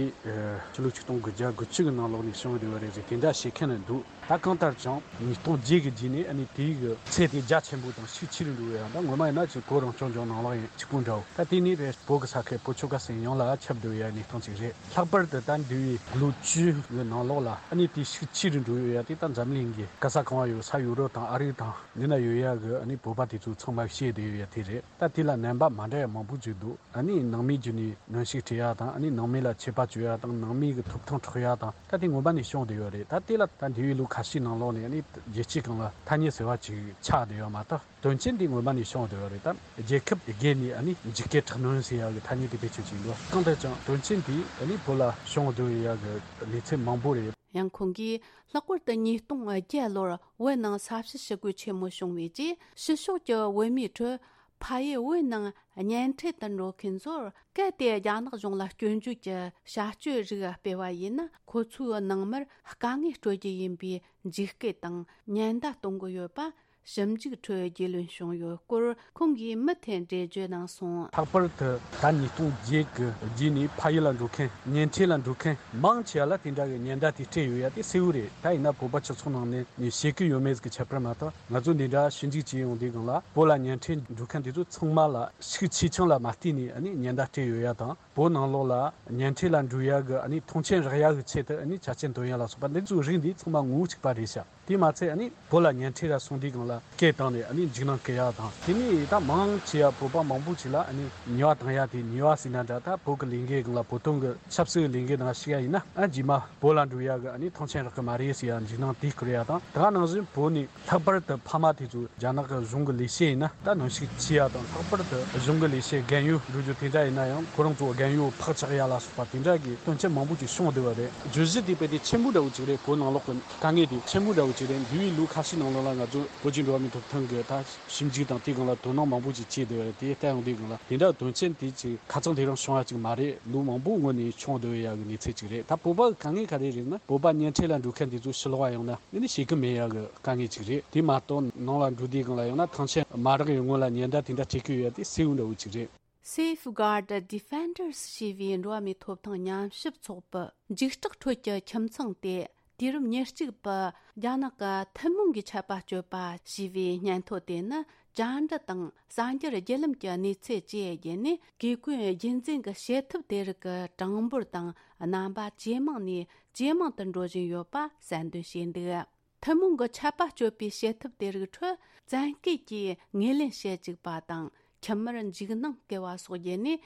ཕྱི་ལོ་ཆིག་སྟོང་དགུ་བརྒྱ་དགུ་བཅུ་གི་ནང་ལོགས་ནས་བྱུང་བསྡད་ཡ་རེད་ཟེར་དེ་འདྲ་བཤད་མཁན་འདུག། ད་གང་ལྟར་ཀྱང་ཉིས་སྟོང་བརྒྱད་ཀྱི་རྗེས་ནས་ཨ་ནི་དེའི་གི་ཚད་དེ་རྒྱ་ཆེན་པོ་དང་ཤུགས་ཆེ་རུ་འགྲོ་བའི་ཡང་ད་ངོ་མ་ཡིན་ན་ཅིག་བོད་རང་སྐྱོང་ལྗོངས་ནང་ལོགས་ཡིན་གཅིག་པུ་འདྲ་བོ། ད་དེ་ནས་བོད་ཀྱི་ས་ཁུལ་བོད་ཆོལ་ཁ་གསུམ་ཡོངས་ལ་ཁྱབ་བསྡད་ཡ་གནས་སྟངས་ཅིག་རེད། ལྷག་པར་དུ་ད་འདས་པའི་ལོ་བཅུ་གི་ནང་ལོགས་ལ་ཨ་ནི་དེ་ཤུགས་ཆེ་རུ་འགྲོ་ཡོད་ཡ་དེ་ད་འཛམ་གླིང་གི་ག་ས་གང་བ་ཡོད་ས་ཡུ་རོབ་དང་ཨ་རི་དང་འདི་ན་ཡོད་ཡ་གི་ཨ་ནི་བོད་པ་དེ་ཚོ་ཚང་མ་ཤེས་བསྡད་ཡོད་ཡ་དེ་རེད། ད་དེ་ལ་རྣམ་པ་མ་འདྲ་ཡ་མང་པོ་ཅིག་འདུག། ཨ་ནི་ནང་མིའི་བརྒྱུད་ནས་གནོན་ཤུགས་སྤྲད་ཡ་དང་། ཨ་ནི་ནང་མི་ལ་ཆད་པ་གཅོད་ཡ་དང་། ནང་མི་གི་ཐོབ་ཐང་འཕྲོག་ཡ་དང་། ད་དེ་སྔོན་མ་ནས་བྱུང་བསྡད་ཡོད་རེད། ད་དེ་ལ་ད་འདས་པའི་ལོ་ཁ་ཤས་ནང་ལོགས་ནས་ཨ་ནི་རྒྱལ་སྤྱིའི་སྒང་ལ་ཐ་སྙད་ཟེར་བ་ཅིག་ཆགས་བསྡད་ཡོད་མ་གཏོགས། དོན་རྐྱེན་དེ་སྔོན་མ་ནས་བྱུང་བསྡད་ཡོད་རེད། ད་རྒྱལ་ཁབ་དེ་བརྒལ་ནས་ཨ་ནི་འཇིགས་སྐུལ་དྲག་གནོན་ཟེར་ཡ་གི་ཐ་སྙད་དེ་བེད་སྤྱོད་བྱས་འདུག། གང་ལྟར་ཀྱང་དོན་རྐྱེན་དེ་ཨ་ནི་བོད་ལ་བྱུང་བསྡད་ཡ་གི་གནས་ཚུལ་མང་པོ་རེད། ཡང་ཁོང་གིས་ལྷག་པར་དུ་ཉིས་སྟོང་བརྒྱད་ལོར་བོད་ནང་ས་བྱི་ཞི་རྒོལ་ཆེན་མོ་བྱུང་བའི་རྗེས། ཕྱི་ཕྱོགས་ཀྱི་བོད་མིའི་ཁྲོད་ཕ་ཡུལ་བོད་ནང་གཉེན་འཕྲད་དུ་འགྲོ་མཁན་ཚོར། གལ་ཏེ་རྒྱ་ནག་གཞུང་ལ་སྐྱོན་བརྗོད་ཀྱི་བྱ་སྤྱོད་རིགས་སྤེལ་བ་ཡིན་ན། ཁོ་ཚོའི་ནང་མིར་དཀའ་ངལ་སྤྲོད་རྒྱུ་ཡིན་པའི་འཇིགས་སྐུལ་དང་ཉེན་བརྡ་གཏོང་གི་ཡོད་པ། ཞིབ་འཇུག་ཁྲོད་རྒྱུས་ལོན་བྱུང་ཡོད་སྐོར་ཁོང་གིས་མུ་མཐུད་འགྲེལ་བརྗོད་གནང་སོང་། ལྷག་པར་དུ་ད་ཉིས་སྟོང་བརྒྱད་ཀྱི་རྗེས་ནས་ཕ་ཡུལ་ལ་འགྲོ་མཁན། གཉེན་འཕྲད་ལ་འགྲོ་མཁན་མང་ཆེ་བ་ལ་དེ་འདྲ་གི་ཉེན་བརྡ་དེ་སྤྲད་ཡོད་ཡ་དེ་གསལ་བོ་རེད། ད་ཡིན་ན་བོད་པ་སྤྱི་ཚོགས་ནང་ནས་ནས་བཤད་ཀྱི་ཡོད་མེད་ཀྱི་ཁྱད་པར་མ་གཏོགས། ང་ཚོ་འདི་འདྲ་ཞིབ་འཇུག་བྱས་ཡོང་དུས་སྒང་ལ། བོད་ལ་གཉེན་འཕྲད་འགྲོ་མཁན་དེ་ཚོ་ཚང་མ་ལ་ཤུགས་ཆེ་ཆུང་ལ་མ་བལྟས་ནས་ཨ་ནི་ཉེན་བརྡ་སྤྲད་ཡོད་ཡ་དང་། བོད་ནང་ལོགས་ལ་གཉེན་འཕྲད་ལ་འགྲོ་ཡ་གི་ཨ་ནི་མཐོང་ཆེན་རག་ཡ་གི་ཆེད་དུ་ཨ་ནི་ཆ་རྐྱེན་འདོན་ཡ་ལ་སོགས་པ་འདི་ཚོའི་རིགས་འདི་ཚང་མ་ངོ་བོ་གཅིག་པ་རེད་ཤག། དེ་མ་ཚད་ཨ་ནི་བོད་ལ་གཉེན་འཕྲད་ལ་སོང་དུས་སྒང་ལ་སྐད་བཏང་ནས་ཨ་ནི་འཇིགས་སྣང་སྐུལ་ཡ་དང་། དེ་ནས་ད་མང་ཆེ་བ་བོད་པ་མང་པོ་ཅིག་ལ་ཨ་ནི་ཉེས་པ་བཏང་ཡ་དེ། ཉེས་པ་ཟེར་ན་འདྲ། ད་བོད་ཀྱི་ལས་འགུལ་སྒང་ལ། བོད་དོན་གྱི་ཆབ་སྲིད་ཀྱི་ལས་འགུལ་ནང་ཞུགས་ཡ་ཡིན་ན། ཨ་རྗེས་མ་བོད་ལ་འགྲོ་ཡ་གི་ཨ་ནི་མཐོང་ཆེན་རག་གི་མ་རེད་ཟེར་ཡ་འཇིགས་སྣང་དེ་སྐུལ་ཡ་དང་། ད་ག་ནང་བཞིན་བོད་ནས་ལྷག་པར་དུ་ཕ་མ་དེ་ཚོ་རྒྱ་ནག་གི་གཞུང་གི་ལས་བྱེད་ཡིན་ན་ད་གནོན་ཤུགས་ཆེ་ཡ་དང་། ལྷག་པར་དུ་གཞུང་གི་ལས་བྱེད་རྒན་ཡོལ་འགྲོ་རྒྱུ་དེ་འདྲ་ཡིན་ན་ཡང་ཁོ་རང་ཚོ་རྒན་ཡོལ་ཕག་ཆགས་ཡ་ལ་སོགས་པ་དེ་འདྲ་གི་དོན་རྐྱེན་མང་པོ་ཅིག་བྱུང་བསྡད་པ་རེད། བརྗོད་གཞི་དེ་དཔེ་དེ་ཆེན་པོ་འདྲ་བོ་ཅིག་རེད། བོད་ནང་ལོགས་ཀྱི་དཀའ་ངལ་དེ་ཆེན་པོ་འདྲ་བོ་ཅིག་རེད། འདས་པའི་ལོ་ཁ་ཤས་ནང་ལོགས་ལ་ང་ཚོ་བོད་ཀྱི་འགྲོ་བ་མིའི་ཐོབ་ཐང་གི་ད་ཞིབ་འཇུག་དང་དེའི་སྒང་ལ་དོ་སྣང་མང་པོ་ཅིག་བྱས་བསྡད་པ་རེད། དེ་ལྟ་ཡོང་དུས་སྒང་ལ་དེ་འདྲ་དོན་རྐྱེན་དེ་ཅིག་ཁ་ཚང་དེ་རིང་བྱུང་བ་ཅིག་མ་རེད། ལོ་མང་པོའི་སྔོན་ནས་བྱུང་བསྡད་ཡ་གི་གནས་ཚུལ་ཅིག་རེད། ད་བོད་པ་གི་དཀའ་ངལ་ག་རེ་རེད་ན། བོད་པ་གཉེན་འཕྲད་ལ་འགྲོ་མཁན་དེ་ཚོ་ཕྱི་ལོགས་ལ་ཡོང་ན་ཨ་ནི་ཞུགས་ཀྱི་མེད་ཡ་གི་དཀའ་ངལ་ཅིག་རེད། དེ་མ་གཏོགས་ནང་ལ་འགྲོ་དུས་སྒང་ལ་ཡོང་ན་མཐོང་ཆེན་མ་རག་ཡོང་སྔོན་ལ་ཉེན་བརྡ་དེ་འདྲ་སྤྲད་ཀྱི་ཡོད་ཡ་དེ་གསལ་བོ་འདྲ་བོ་ཅིག་རེད། Safeguard Defenders ཞེས་པའི་འགྲོ་བ་མིའི་ཐོབ་ཐང་ཉམས་ཞིབ་ཚོགས་པའི་འཇིགས་སྐྲག་ཁྲོད་ཀྱི་ཁྱིམ་ཚང་དེ། དུས་རབས་ཉེར་གཅིག་པའི་རྒྱ་ནག་གི་ཐུན་མོང་གི་ཆད་པ་གཅོད་པ་ཞེས་པའི་སྙན་ཐོ་དེ་ནི། བཅར་འདྲི་དང་གསར་འགྱུར་བརྒྱུད་ལམ་གྱི་གནས་ཚུལ་བཅས་བརྒྱུད་ནས། གེ་ཀུན་རྒྱུན་འཛིན་གྱི་བྱེད་ཐབས་དེ་རིགས་ཀྱི་གྲངས་འབོར་དང་རྣམ་པ་ཇེ་མང་ནས་ཇེ་མང་དུ་འགྲོ་བཞིན་ཡོད་པ་གསལ་འདོན་བྱས་འདུག། ཐུན་མོང་གི་ཆད་པ་གཅོད་པའི་བྱེད་ཐབས་དེ་རིགས་ཁྲོད་བཙན་སྐུལ་གྱིས་ངོས་ལེན་བྱེད་བཅུག་པ་དང་། ཁྱིམ་མིར་འཇིགས་སྣང་སྐུལ་བ་སོགས་བརྒྱུད་ནས།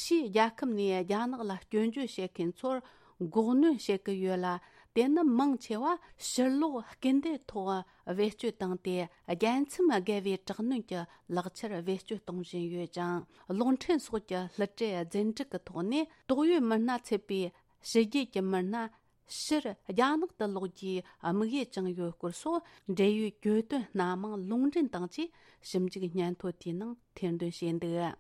ཕྱིའི་རྒྱལ་ཁབ་ནས་རྒྱ་ནག་ལ་སྐྱོན་བརྗོད་བྱེད་མཁན་ཚོར་འགོག་གནོན་བྱེད་ཀྱི་ཡོད་ལ། དེ་ནི་མང་ཆེ་བ་ཕྱིར་ལོག་སྐུལ་འདེད་ཐོག་བེད་སྤྱོད་བཏང་སྟེ། རྒྱལ་མཚམས་བརྒལ་བའི་དྲག་གནོན་གྱི་ལག་ཆར་བེད་སྤྱོད་གཏོང་བཞིན་ཡོད་ཅིང་། གློག་འཕྲིན་སོགས་ཀྱི་སླུ་བྲིད་རྫུན་སྒྲིག་གི་ཐོག་ནས། ཏོག་དབྱིབས་མི་སྣ་ཚུད་པའི་ཕྱི་རྒྱལ་གྱི་མི་སྣ་ཕྱིར་རྒྱ་ནག་ཏུ་ལོག་རྒྱུའི་དམིགས་ཡུལ་བཅངས་ཡོད་སྐོར་སོགས། འབྲེལ་ཡོད་གྱོད་དོན་སྣ་མང་ལུང་འདྲེན་དང་བཅས་ཞིབ་འཇུག་སྙན་ཐོ་དེའི་ནང་ཐེར་འདོན་བྱས་འདུག་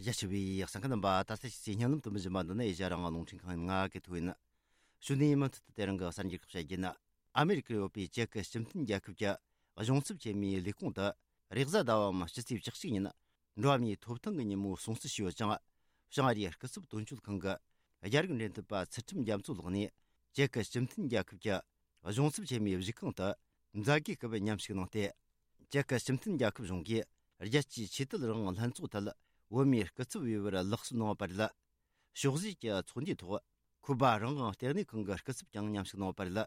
རྒྱ་ཆེ་བའི་གསན་མཁན་རྣམ་པ། ད་ལྟ་ཕྱི་ཚེས་བརྙན་ལམ་དུ་མི་བཞིན་པ་འདི་ནི་ཨེ་ཤ་རང་དབང་རླུང་འཕྲིན་ཁང་ཡིན། ང་གི་ཐུག་ཡིན། གཞུག་ནས་མུ་མཐུད་དུ་དེ་རིང་གི་གསར་འགྱུར་ཁག་བཤད་རྒྱུ་ཡིན། ཨ་མེ་རི་ཀར་ཡོད་པའི་ཅེག་གི་སྤྱི་མཐུན་རྒྱལ་ཁབ་ཀྱི་གཞུང་ཚབ་ཆེན་མོའི་ལས་ཁུངས་དུ། རེས་གཟའ་ཟླ་བའམ་སྤྱི་ཚེས་བཅུ་གཅིག་ཉིན་འགྲོ་བ་མིའི་ཐོབ་ཐང་གི་ཉིན་མོ་སྲུང་བརྩི་ཞུས་ཡོད་ཅིང་། བྱང་ཨ་རིའི་སྐུ་ཚབ་དོན་གཅོད་ཁང་གི་རྒྱ་རིགས་འབྲེལ་མཐུད་པ་ཚུལ་ཁྲིམས་རྒྱ་མཚོ་ལགས་ནས། ཅེག་གི་སྤྱི་མཐུན་རྒྱལ་ཁབ་ཀྱི་གཞུང་ཚབ་ཆེན་མོའི་བཞུགས་ཁང་དུ་མཛད་སྒོའི་སྐབས་མཉམ་ཞུགས་གནང་སྟེ། ཅེག་གི་སྤྱི་མཐུན་རྒྱལ་ཁབ་གཞུང་གིས་རྒྱལ་སྤྱིའི་ཆོས་དད་རང་དབང་ལྷན་ཚོགས་ཐད་བོད་མིའི་སྐུ་ཚབ་འོས་པར་ལག་སོན་གནང་བ་རེད། ཕྱོགས་བཞི་གི་ཚོགས་འདུའི་ཐོག་ཁུ་སྦ་རང་དབང་ལྟེ་གནས་ཁང་གི་སྐུ་ཚབ་ཀྱང་མཉམ་ཞུགས་གནང་བ་རེད།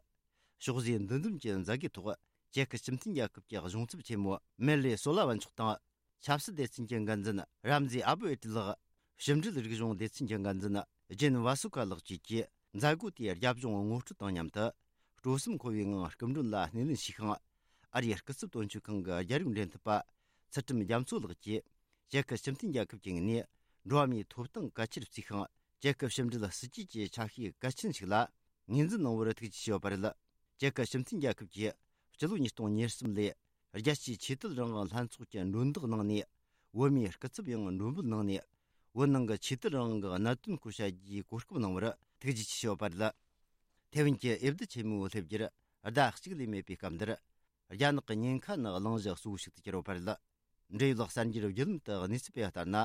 ཕྱོགས་བཞིའི་འདུ་འཛོམས་ཀྱི་མཛད་སྒོའི་ཐོག་ཅེག་གི་སྤྱི་མཐུན་རྒྱལ་ཁབ་ཀྱི་གཞུང་ཚབ་ཆེན་མོ་མེར་ལེ་སོ་ལ་ཝན་མཆོག་དང་། ཆབ་སྲིད་སྡེ་ཚན་གྱི་འགན་འཛིན་རམ་ཟེ་ཨ་བུ་ཨེ་ཏི་ལགས། ཕྱི་འབྲེལ་རིག་གཞུང་སྡེ་ཚན་གྱི་འགན་འཛིན་ཇེན་ཝ་སུ་ཁ་ལགས་བཅས་ཀྱིས་མཛད་སྒོ་དེའི་རྒྱབ་ལྗོངས་ངོ་སྤྲོད་དང་མཉམ་དུ། སྤྲོ་སེམས་འཁོལ་བའི་ངང་སྐུ་མགྲོན་ལ་སྣེ་ལེན་ཞུས་ཤིང་། ཨ་རིའི་སྐུ་ཚབ་དོན་གཅོད་ཁང་གི་རྒྱ་རིགས་འབྲེལ་མཐུད་པ་ཚུལ་ཁྲིམས་རྒྱ་མཚོ་ལགས་ཀྱིས། ཅེག་གི་སྤྱི་མཐུན་རྒྱལ་ཁབ་ཀྱི་ངོས་ནས་འགྲོ་བ་མིའི་ཐོབ་ཐང་གལ་ཆེར་བརྩིས་ཤིང་། ཅེག་གི་ཕྱི་འབྲེལ་སྲིད་ཇུས་ཀྱི་ཆ་ཤས་གལ་ཆེན་ཞིག་ལ་ངོས་འཛིན་གནང་བར་ཐུགས་རྗེ་ཆེ་ཞུས་པ་རེད། ཅེག་གི་སྤྱི་མཐུན་རྒྱལ་ཁབ་ཀྱིས་སྤྱི་ལོ་ཉིས་སྟོང་ཉེར་གསུམ་ལོར་རྒྱལ་སྤྱིའི་ཆོས་དད་རང་དབང་ལྷན་ཚོགས་ཀྱི་མགྲོན་བདག་གནང་ནས། བོད་མིའི་སྐུ་ཚབ་ཡང་མགྲོན་འབོད་གནང་ནས། བོད་ནང་གི་ཆོས་དད་རང་དབང་གི་གནད་དོན་སྐོར་བཤད་རྒྱུའི་གོ་སྐབས་གནང་བར་ཐུགས་རྗེ་ཆེ་ཞུས་པ་རེད། ཐེ་ཝན་གྱི་འོས་བསྡུ་ཆེན་མོའི་སླེབས་རྒྱུར་ཟླ་གཅིག་ལས་མེད་པའི་སྐབས་འདིར། རྒྱ་ནག་གི་ཉེན་ཁ་ནི་གླེང་གཞི་གཙོ་བོ་ཞིག་ཏུ་གྱུར་ཡོད་པ་རེད། འབྲེལ་ཡོད་གསར་འགྱུར་བརྒྱུད་ལམ་དུ་གནས་ཚུལ་སྤེལ་བ་ལྟར་ན།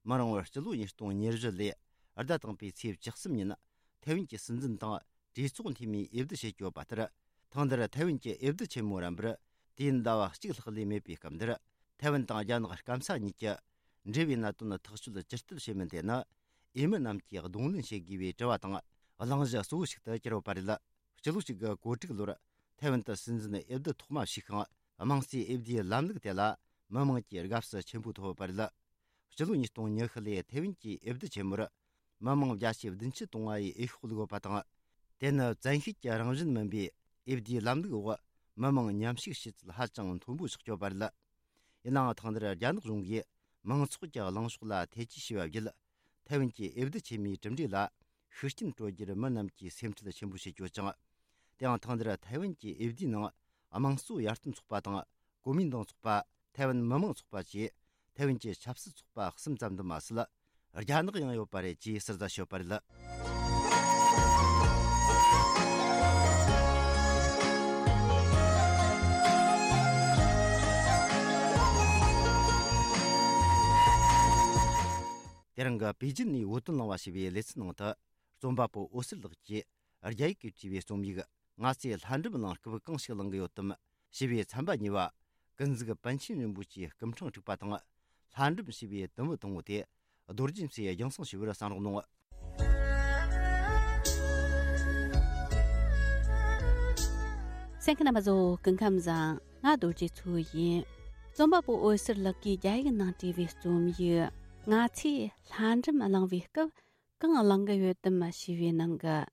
མི་རིང་བར་སྤྱི་ལོ་ཉིས་སྟོང་ཉེར་བཞི་ལོའི་ཟླ་དང་པོའི་ཚེས་བཅུ་གསུམ་ཉིན་ཐེ་ཝན་གྱི་སྲིད་འཛིན་དང་གྲོས་ཚོགས་འཐུས་མིའི་འོས་བསྡུ་བྱེད་ཀྱི་ཡོད་པ་ལྟར། ཐེངས་འདིར་ཐེ་ཝན་གྱི་འོས་བསྡུ་ཆེན་མོ་རན་པར་དུས་ཡུན་ཟླ་བ་གཅིག་ལྷག་ལས་མེད་པའི་སྐབས་འདིར། ཐེ་ཝན་དང་རྒྱ་ནག་སྐམ་ས་གཉིས་ཀྱི་འབྲེལ་བའི་གནད་དོན་ཐག་གཅོད་ཇི་ལྟར་བྱེད་མིན་དེ་ནི། འོས་མི་རྣམས་ཀྱིས་གདོང་ལེན་བྱེད་དགོས་པའི་དྲི་བ་དང་གླེང་གཞི་གཙོ་བོ་ཞིག་ཏུ་གྱུར་ཡོད་པ་རེད། སྤྱི་ལོ་གཅིག་དགུ་གོ་དྲུག་ལོར་ཐའེ་ཝན་དུ་སྲིད་འཛིན་འོས་བསྡུ་ཐོག་མ་ཞུས་ཤིང་། དམངས་གཙོའི་འོས་བསྡུའི་ལམ་ལུགས་དེ་ལ་མི་དམངས་ཀྱིས་དགའ་བསུ་ཆེན་པོ་ཐོབ་ཡོད་པ་རེད། སྤྱི་ལོ་ཉིས་སྟོང་ཉི་ཤུ་ལོའི་ཐའེ་ཝན་གྱི་འོས་བསྡུ་ཆེན་མོར་མི་དམངས་བརྒྱ་ཆའི་བདུན་ཅུ་དོན་ལྔ་ཡིས་འོས་ཤོག་བླུགས་ཡོད་པ་དང་། དེ་ནི་བཙན་ཤེད་ཀྱི་རང་བཞིན་མིན་པའི་འོས་བསྡུའི་ལམ་ལུགས་འོག་མི་དམངས་མཉམ་ཞུགས་བྱེད་ཚུལ་ཧ་ཅང་མཐོན་པོ་ཆགས་ཡོད་པ་རེད། ཡིན་ནའང་། ཐེངས་འདིར་རྒྱ་ནག་གཞུང་གིས་མང་ཚོགས་ཀྱི་གླེང་ཕྱོགས་ལ་ཐེ་ཇུས་བྱས་པ་བརྒྱུད། ཐའེ་ཝན་གྱི་འོས་བསྡུ་ཆེན་མོའི་གྲུབ་འབྲས་ལ་ཤུགས་རྐྱེན་སྤྲོད་རྒྱུར་མི་རྣམས་ཀྱིས་སེམས་ཁྲལ་ཆེན་པོ་བྱེད་ཀྱི་ཡོད་ཅིང་། དེའང་། ཐེངས་འདིར་ཐའེ་ཝན་གྱི་འོས་བསྡུའི་ནང་། དམངས་གཙོ་ཡར་ཐོན་ཚོགས་པ་དང་། གོ་མིན་ཏང་ཚོགས་པ། ཐའེ་ཝན་མི་དམངས་ཚོགས་པ་བཅས་ཐའེ་ཝན་གྱི་ཆབ་སྲིད་ཚོགས་པ་གསུམ་ཙམ་དུ་མ་ཟད། རྒྱ་ནག་ཡང་ཡོད་པ་རེད་ཅེས་ཟུར་ཟ་བྱས་ཡོད་པ་རེད། དེ་རིང་གི་པེ་ཅིན་ནས་བོད་དོན་གླེང་བ་ཞེས་པའི་ལེ་ཚན་ནང་དུ། རྩོམ་པ་པོ་འོད་ཟེར་ལགས་ཀྱིས་རྒྱ་ཡིག་གིས་བྲིས་པའི་རྩོམ་ཡིག་ང་ཚོས་ལྷ་འབྲུམ་གླེང་སྐབས་གང་ཞིག་གླེང་གི་ཡོད་དམ་ཞེས་པའི་ཚན་པ་གཉིས་པ། ཀུན་གཟིགས་པཎ་ཆེན་རིན་པོ་ཆེའི་སྐུ་ཕྲེང་དྲུག་པ་དང་། ལྷ་འབྲུམ་ཞེས་པའི་དུམ་བུ་དང་པོ་དེ་རྡོ་རྗེ་མཚོས་རྒྱང་སྲིང་ཞུ་བར་གསན་རོགས་གནང་། གསན་མཁན་རྣམ་པ་ཚོ་སྐུ་ཁམས་བཟང་། ང་རྡོ་རྗེ་མཚོ་ཡིན། རྩོམ་པ་པོ་འོད་ཟེར་ལགས་ཀྱིས་རྒྱ་ཡིག་ནང་བྲིས་པའི་རྩོམ་ཡིག་ང་ཚོས་ལྷ་འབྲུམ་གླེང་བའི་སྐབས་གང་གླེང་གི་ཡོད་དམ་ཞེས་པའི་ནང་གི།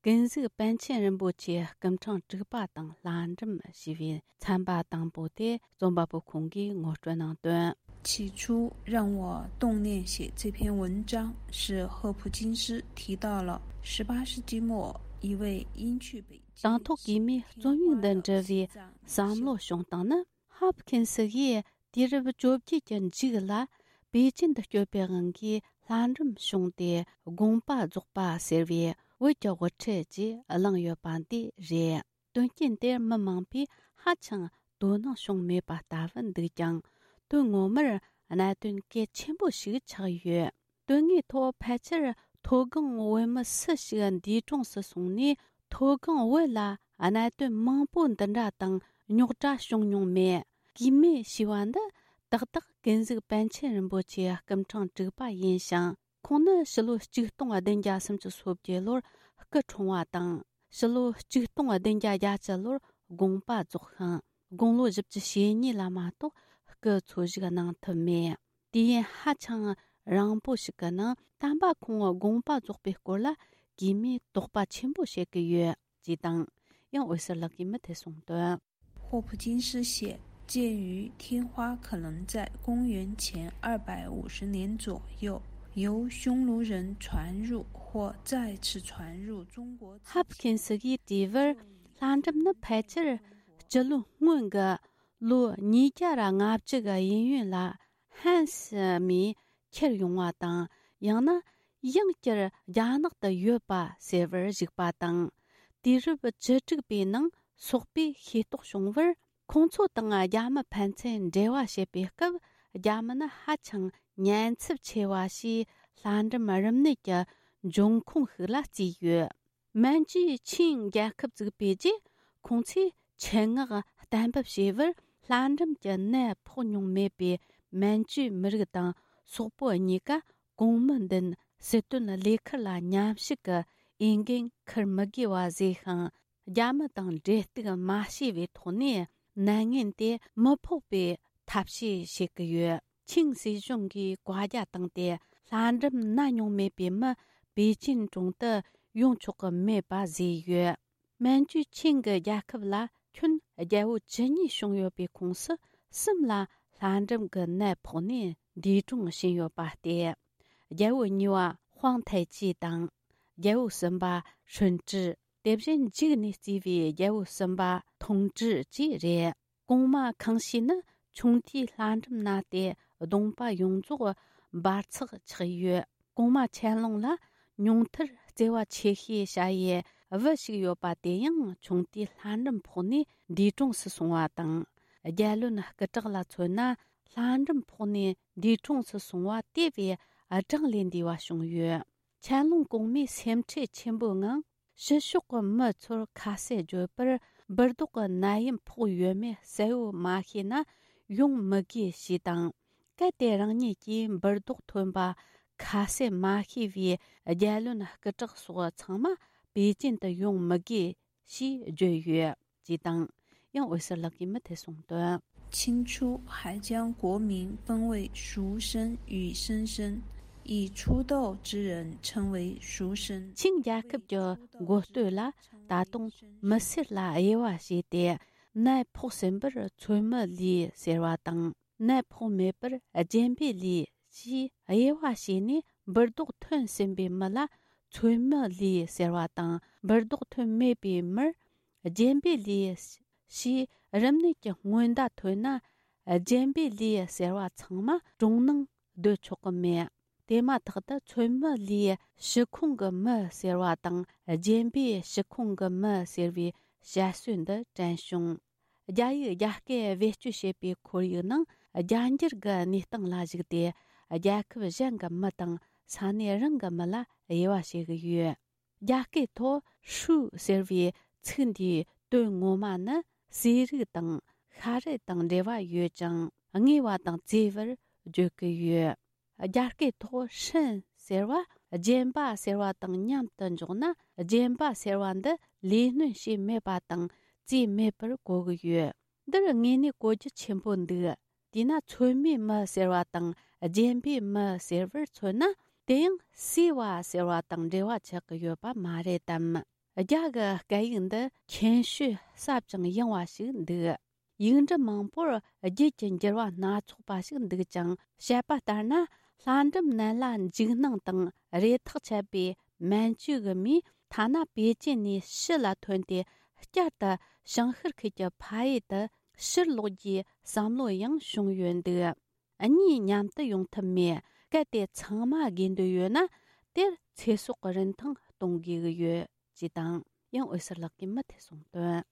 ཀུན་གཟིགས་པཎ་ཆེན་རིན་པོ་ཆེའི་སྐུ་ཕྲེང་དྲུག་པ་དང་ལྷ་འབྲུམ་ཞེས་པའི་ཚན་པ་དང་པོ་དེ་རྩོམ་པ་པོ་ཁོང་གིས་ངོ་སྤྲོད་གནང་དོན། 起初让我动念写这篇文章，是赫普金斯提到了十八世纪末一位英剧北京 དང་ཐོག་གིས་མོས་རྩོམ་ཡིག་འདི་འབྲི་བའི་བསམ་བློ་བྱུང་སྟངས་ནི། ཧབ་ཁིན་སི་ཡིས་དུས་རབས་བཅོ་བརྒྱད་ཀྱི་མཇུག་ལ་པེ་ཅིན་དུ་སྐྱོད་པའི་དབང་གིས་ལྷ་འབྲུམ་བྱུང་སྟེ། དགོངས་པ་རྫོགས་པ་ཟེར་བའི་བོད་ཀྱི་དབུ་ཁྲིད་ཅེས་གླེང་ཡོད་པ་འདི་རེད། དོན་རྐྱེན་དེར་མི་མང་པོས་ཧ་ཅང་དོ་སྣང་བྱུང་མེད་པ་ལྟ་བུ་འདུག་ཀྱང་། དོན་ངོ་མར་གནད་དོན་གལ་ཆེན་པོ་ཞིག་ཆགས་ཡོད། དོན་དངོས་ཐོག་ཕལ་ཆེར་མཐོ་སྒང་བོད་མི་སུ་ཞིག་འདས་གྲོངས་སུ་སོང་ནས། མཐོ་སྒང་བོད་ལ་ གནད་དོན་མང་པོ་འདི་འདྲ་དང་རྙོག་དྲ་བྱུང་མྱོང་མེད། གུས་མེད་ཞེས་པ་འདི་ཏག་ཏག་ཀུན་གཟིགས་པཎ་ཆེན་རིན་པོ་ཆེའི་སྐུ་ཕྲེང་དྲུག་པ་ཡིན་ཞིང་། ཁོང་ནི་ཕྱི་ལོ་ཆིག་སྟོང་བདུན་བརྒྱ་སུམ་ཅུ་སོ་བརྒྱད་ལོར་སྐུ་འཁྲུངས་པ་དང་། ཕྱི་ལོ་ཆིག་སྟོང་བདུན་བརྒྱ་བརྒྱད་ཅུ་ལོར་དགོངས་པ་རྫོགས་ཤིང་། དགུང་ལོ་བཞི་བཅུ་ཞེ་གཉིས་ལ་མ་གཏོགས་སྐུ་འཚོ་བཞུགས་གནང་ཐུབ་མེད། དུས་ཡུན་ཧ་ཅང་རིང་པོ་ཞིག་གི་ནང་། དམ་པ་ཁོང་དགོངས་པ་རྫོགས་པའི་སྐོར་ལ་གུས་མོས་དོགས་པ་ཆེན་པོ་བྱེད་ཀྱི་ཡོད་ཅེས་དང་། ཡང་འོད་ཟེར་ལགས་ཀྱིས་མུ་མཐུད་གསུངས་དོན། 霍普金斯写，鉴于天花可能在公元前二百五十年左右由匈奴人传入或再次传入中国之前， ཧབ་ཁིན་སི་གིས་བྲིས་པར། ལྷ་འབྲུམ་ནི་ཕལ་ཆེར་སྤྱི་ལོའི་སྔོན་གྱི་ལོ་ཉིས་བརྒྱ་ར་ལྔ་བཅུ་གི་གཡས་གཡོན་ལ་ཧན་སི་མིས་ཁྱེར་ཡོང་བ་དང་། ཡང་ན་ཡང་བསྐྱར་རྒྱ་ནག་ཏུ་ཡོད་པ་ཟེར་བར་གཞིགས་པ་དང་། དུས་རབས་བཅུ་དྲུག་པའི་ནང་སོག་པོས་ཤེས་རྟོགས་བྱུང་བར། ཁོང་ཚོ་དང་རྒྱ་མི་ཕན་ཚུན་འབྲེལ་བ་བྱེད་པའི་སྐབས། རྒྱ་མི་ནི་ཧ་ཅང་ཉེན་ཚབས་ཆེ་བ་ཞེས་ལྷ་འབྲུམ་རིམས་ནད་ཀྱི་འབྱུང་ཁུངས་ཤིག་ལ་བརྩིས་ཡོད། མན་ཇུའི་ཆིང་རྒྱལ་ཁབ་བཙུགས་པའི་རྗེས། ཁོང་ཚོས་ཆེད་མངགས་གཏན་འབེབས་བྱས་པར། ལྷ་འབྲུམ་གྱི་ནད་ཕོག་མྱོང་མེད་པའི་མན་ཇུའི་མི་རིགས་དང་སོག་པོ་གཉིས་ཀ་གོང་མའི་མདུན་སྲིད་དོན་ལས་ཁུར་ལ་མཉམ་ཞུགས་ཀྱི་འོས་འགན་འཁུར་མི་དགོས་པ་བཟོས་ཤིང་། རྒྱ་མི་དང་འབྲེལ་གཏུག་མ་བྱས་པའི་ཐོག་ནས་ནད་ངན་དེ་མི་ཕོག་པའི་ཐབས་ཤེས་བྱེད་ཀྱི་ཡོད། ཆིང་སྲིད་གཞུང་གིས་བཀའ་རྒྱ་བཏང་སྟེ། ལྷ་འབྲུམ་ན་མྱོང་མེད་པའི་མི་པེ་ཅིན་གྲོང་དུ་ཡོང་ཆོག་གི་མེད་པ་བཟོས་ཡོད། མན་ཇུའི་ཆིང་གི་རྒྱལ་ཁབ་ལ་ཁྱོན་རྒྱལ་པོ་བཅུ་གཉིས་བྱུང་ཡོད་པའི་ཁོངས་སུ་གསུམ་ལ་ལྷ་འབྲུམ་གྱི་ནད་ཕོག་ནས་འདས་གྲོངས་ཕྱིན་ཡོད་པ་སྟེ། རྒྱལ་པོ་གཉིས་པ་ཧུང་ཐའེ་ཅི་དང་། རྒྱལ་པོ་གསུམ་པ་ཧྲུན་ཀྲི། དེ་བཞིན་མཇུག་ནས་བརྩིས་པའི་རྒྱལ་པོ་གསུམ་པ་ཐུང་ཀྲི་བཅས་རེད། གོང་མ་ཁང་ཤིས་ནི་ཆུང་དུས་ལྷ་འབྲུམ་ན་སྟེ། གདོང་པ་ཡོངས་རྫོགས་འབར་འཛག་ཆགས་ཡོད། གོང་མ་ཆན་ལུང་ལ་ཉུང་མཐར་བརྩེ་བ་ཆེ་ཤོས་བྱ་ཡུལ་བུ་ཞིག་ཡོད་པ། དེ་ཡང་ཆུང་དུས་ལྷ་འབྲུམ་ཕོག་ནས་འདས་གྲོངས་སུ་སོང་བ་དང་། རྒྱལ་བློན་སྐུ་དྲག་ལ་མཚོན་ན། ལྷ་འབྲུམ་ཕོག་ནས་འདས་གྲོངས་སུ་སོང་བ་དེ་བས་གྲངས་ལས་འདས་པ་བྱུང་ཡོད། ཆན་ལུང་གོང་མའི་སེམས་ཁྲལ་ཆེན་པོའི་ངང་། ཕྱི་ཕྱོགས་ཀྱི་མི་ཚོར་ཁ་གསལ་བརྗོད་པར། འབུར་རྡོག་གི་ནད་ཡམས་ཕོག་ཡོད་མེད་གསལ་བོ་མ་ཤེས་ན་ཡོང་མི་དགོས་ཞེས་དང་། གལ་ཏེ་རང་ཉིད་ཀྱིས་འབུར་རྡོག་ཐོན་པ་ཁ་གསལ་མ་ཤེས་པའི་རྒྱལ་བློན་སྐུ་དྲག་སོགས་ཚང་མ་པེ་ཅིན་དུ་ཡོང་མི་དགོས་ཞེས་བརྗོད་ཡོད་ཅེས་དང་། ཡང་འོད་ཟེར་ལགས་ཀྱིས་མུ་མཐུད་གསུངས་དོན། 清初还将国民分为俗生与僧生，以初道之人称为俗生。 ཆིང་རྒྱལ་ཁབ་ཀྱི་འགོ་སྟོད་ལ་ད་དུང་མི་སེར་ལ་དབྱེ་བ་བྱས་ཏེ། ནད་ཕོག་ཟིན་པར་ཚོད་མའི་ལུས་ཟེར་བ་དང་། ནད་ཕོག་མེད་པར་རྒྱན་པའི་ལུས་ཞེས་དབྱེ་བ་ཕྱེ་ནས། འབུར་རྡོག་ཐོན་ཟིན་པའི་མི་ལ་ཚོད་མའི་ལུས་ཟེར་བ་དང་། འབུར་རྡོག་ཐོན་མེད་པའི་མིར་རྒྱན་པའི་ལུས་ཞེས། རིམས་ནད་ཀྱི་སྔོན་བརྡ་ཐོན་ན་རྒྱན་པའི་ལུས་ཟེར་བ་ཚང་མ་གྲོང་ནང་སྡོད་ཆོག་གི་མེད། དེ་མ་ཐག་ཏུ་ཚོད་མའི་ལུས་ཕྱི་ཁོངས་ཀྱི་མི་ཟེར་བ་དང་། རྒྱན་པའི་ཕྱི་ཁོངས་ཀྱི་མི་ཟེར་བའི་བཤད་སྲོལ་འདི་དྲན་བྱུང་། རྒྱ་ཡིག་རྒྱ་སྐད་བེད་སྤྱོད་བྱེད་པའི་ཁོར་ཡུག་ནང་། རྒྱ་འགྱུར་གྱི་གནས་སྟངས་ལ་གཞིགས་ཏེ། རྒྱལ་ཁབ་གཞན་གྱི་མི་དང་ས་གནས་རང་གི་མི་ལ་དབྱེ་བ་ཕྱེ་གི་ཡོད། རྒྱ་སྐད་ཐོག་ཧྲུའུ་ཟེར་བའི་ཚིག་འདིའི་དོན་ངོ་མ་ནི་ཟས་རིགས་དང་ཤ་རིགས་དང་འབྲེལ་བ་ཡོད་ཅིང་། བརྔོས་པ་དང་བཙོས་པར་བརྗོད་ཀྱི་ཡོད། རྒྱ་སྐད་ཐོག་ཧྲིན་ཟེར་བ་རྒྱན་པ་ཟེར་བ་དང་མཉམ་དུ་འཇོག་ན། རྒྱན་པ་ཟེར་བ་འདི་ལས་སྣོན་བྱས་མེད་པ་དང་བཙོས་མེད་པར་གོ་གི་ཡོད། འདིར་དངོས་གནས་གོ་རྒྱུ་ཆེན་པོ་འདུག། དེས་ན་ཚོད་མའི་མི་ཟེར་བ་དང་རྒྱན་པའི་མི་ཟེར་བར་མཚོན་ན། དེ་ཡང་བསྲེས་པ་ཟེར་བ་དང་འབྲེལ་བ་ཆགས་ཀྱི་ཡོད་པ་མ་རེད་དམ། རྒྱ་གི་སྐད་ཡིག་འདི་མཁྱེན་ཤོས་ཟབ་ཅིང་ཡངས་པ་ཞིག་འདུག། ཡིག་འབྲུ་མང་པོར་རྒྱུད་ཀྱི་འགྱུར་བ་སྣ་ཚོགས་པ་ཞིག་འདུག་ཅིང་། བཤད་པ་ལྟར་ན། ལྷ་འབྲུམ་ནད་ལ་འཇིགས་སྣང་དང་རེ་ཐག་ཆད་པའི་མན་ཇུ་གི་མིས་ཐ་ན་པེ་ཅིན་ནས་ཕྱི་ལ་ཐོན་ཏེ་བསྐྱར་དུ་ཞིང་ཤར་ཁུལ་གྱི་ཕ་ཡུལ་དུ་ཕྱིར་ལོག་རྒྱུའི་བསམ་བློ་ཡང་བྱུང་ཡོད་འདུག། གཉིས་མཉམ་དུ་ཡོང་ཐབས་མེད། གལ་ཏེ་ཚང་མ་དགོས་འདོད་ཡོད་ན། དེར་ཚེ་སྲོག་གི་རིན་ཐང་གཏོང་དགོས་ཀྱི་ཡོད། ཅེས་དང་། ཡང་འོད་ཟེར་ལགས་ཀྱིས་མུ་མཐུད་གསུངས་དོན།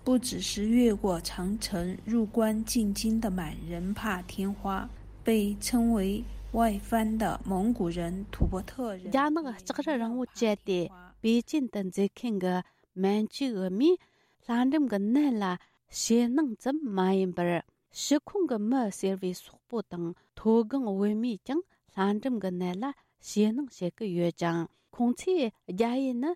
不只是越过长城入关进京的满人怕天花，被称为外藩的蒙古人、吐蕃特人， རྒྱ་ནག་ལྕགས་རི་རིང་བོ་བཅད་དེ་པེ་ཅིན་དུ་འཛུལ་མཁན་གྱི་མན་ཇུའི་མིས། ལྷ་འབྲུམ་གྱི་ནད་ལ་ཞེད་སྣང་ཙམ་མ་ཡིན་པར། ཕྱི་ཁོང་གི་མི་ཟེར་བའི་སོག་པོ་དང་མཐོ་སྒང་བོད་མིས་ཀྱང་ལྷ་འབྲུམ་གྱི་ནད་ལ་ཞེད་སྣང་བྱེད་ཀྱི་ཡོད་ཅིང་། ཁོང་ཚོས་རྒྱ་ཡུལ་ནི་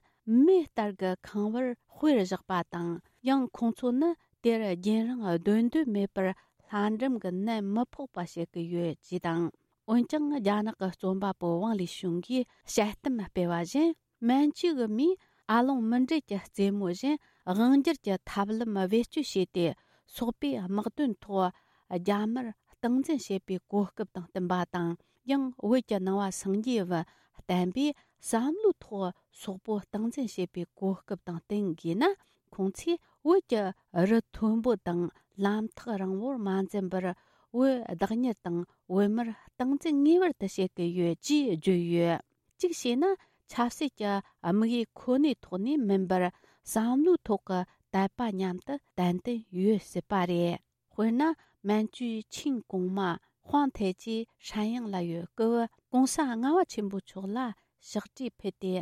མེ་ལྟར་གྱི་ཁང་བར་དཔེར་བཞག་པ་དང་། ཡང་ཁོང་ཚོ་ནི་དེར་རྒྱུན་རིང་སྡོད་འདོད་མེད་པར། ལྷ་འབྲུམ་གྱི་ནད་མི་ཕོག་པ་བྱེད་ཀྱི་ཡོད་ཅེས་དང་། འོན་ཀྱང་། རྒྱ་ནག་གི་རྩོམ་པ་པོ་ཝང་ལི་ཞུང་གིས་དཔྱད་གཏམ་སྤེལ་བ་བཞིན། མན་ཇུ་གི་མིས་ཨ་ལོང་མུ་འབྲེལ་གྱི་རྩེད་མོ་བཞིན་དབང་སྒྱུར་གྱི་ཐབས་ལམ་བེད་སྤྱོད་བྱས་ཏེ། སོག་པོའི་དམག་དོན་ཐོག་རྒྱ་དམར་སྟངས་འཛིན་བྱེད་པའི་གོ་སྐབས་དང་བསྟུན་པ་དང་། ཡང་བོད་ཀྱི་ནང་བ་སངས་རྒྱས་བུ་བསྟན་པས་བསམ་བློའི་ཐོག་སོག་པོ་སྟངས་འཛིན་བྱེད་པའི་གོ་སྐབས་དང་བསྟུན་དགོས་ན། ཁོང་ཚོས་བོད་ཀྱི་རི་མཐོན་པོ་དང་ལམ་ཐག་རིང་བོར་མ་འཛེམས་པར། བོད་བདག་གཉེར་དང་བོད་མིར་སྟངས་འཛིན་ངེས་པར་དུ་བྱེད་ཀྱི་ཡོད་ཅེས་བརྗོད་ཡོད། གཅིག་བྱས་ན། ཆབ་སྲིད་ཀྱི་དམིགས་ཡུལ་ཁོ་ནའི་ཐོག་ནས་མིན་པར། བསམ་བློའི་ཐོག་གི་དད་པ་མཉམ་དུ་ཏན་ཏན་ཡོད་སྲིད་པ་རེད། དཔེར་ན། མན་ཇུའི་ཆིང་གོང་མ་ཧུང་ཐའེ་ཅི་ཧྲན་དབྱང་ལ་ཡོད་སྐབས། གོང་ས་ལྔ་པ་ཆེན་པོ་མཆོག་ལ་ཕྱག་བྲིས་ཕུལ་ཏེ།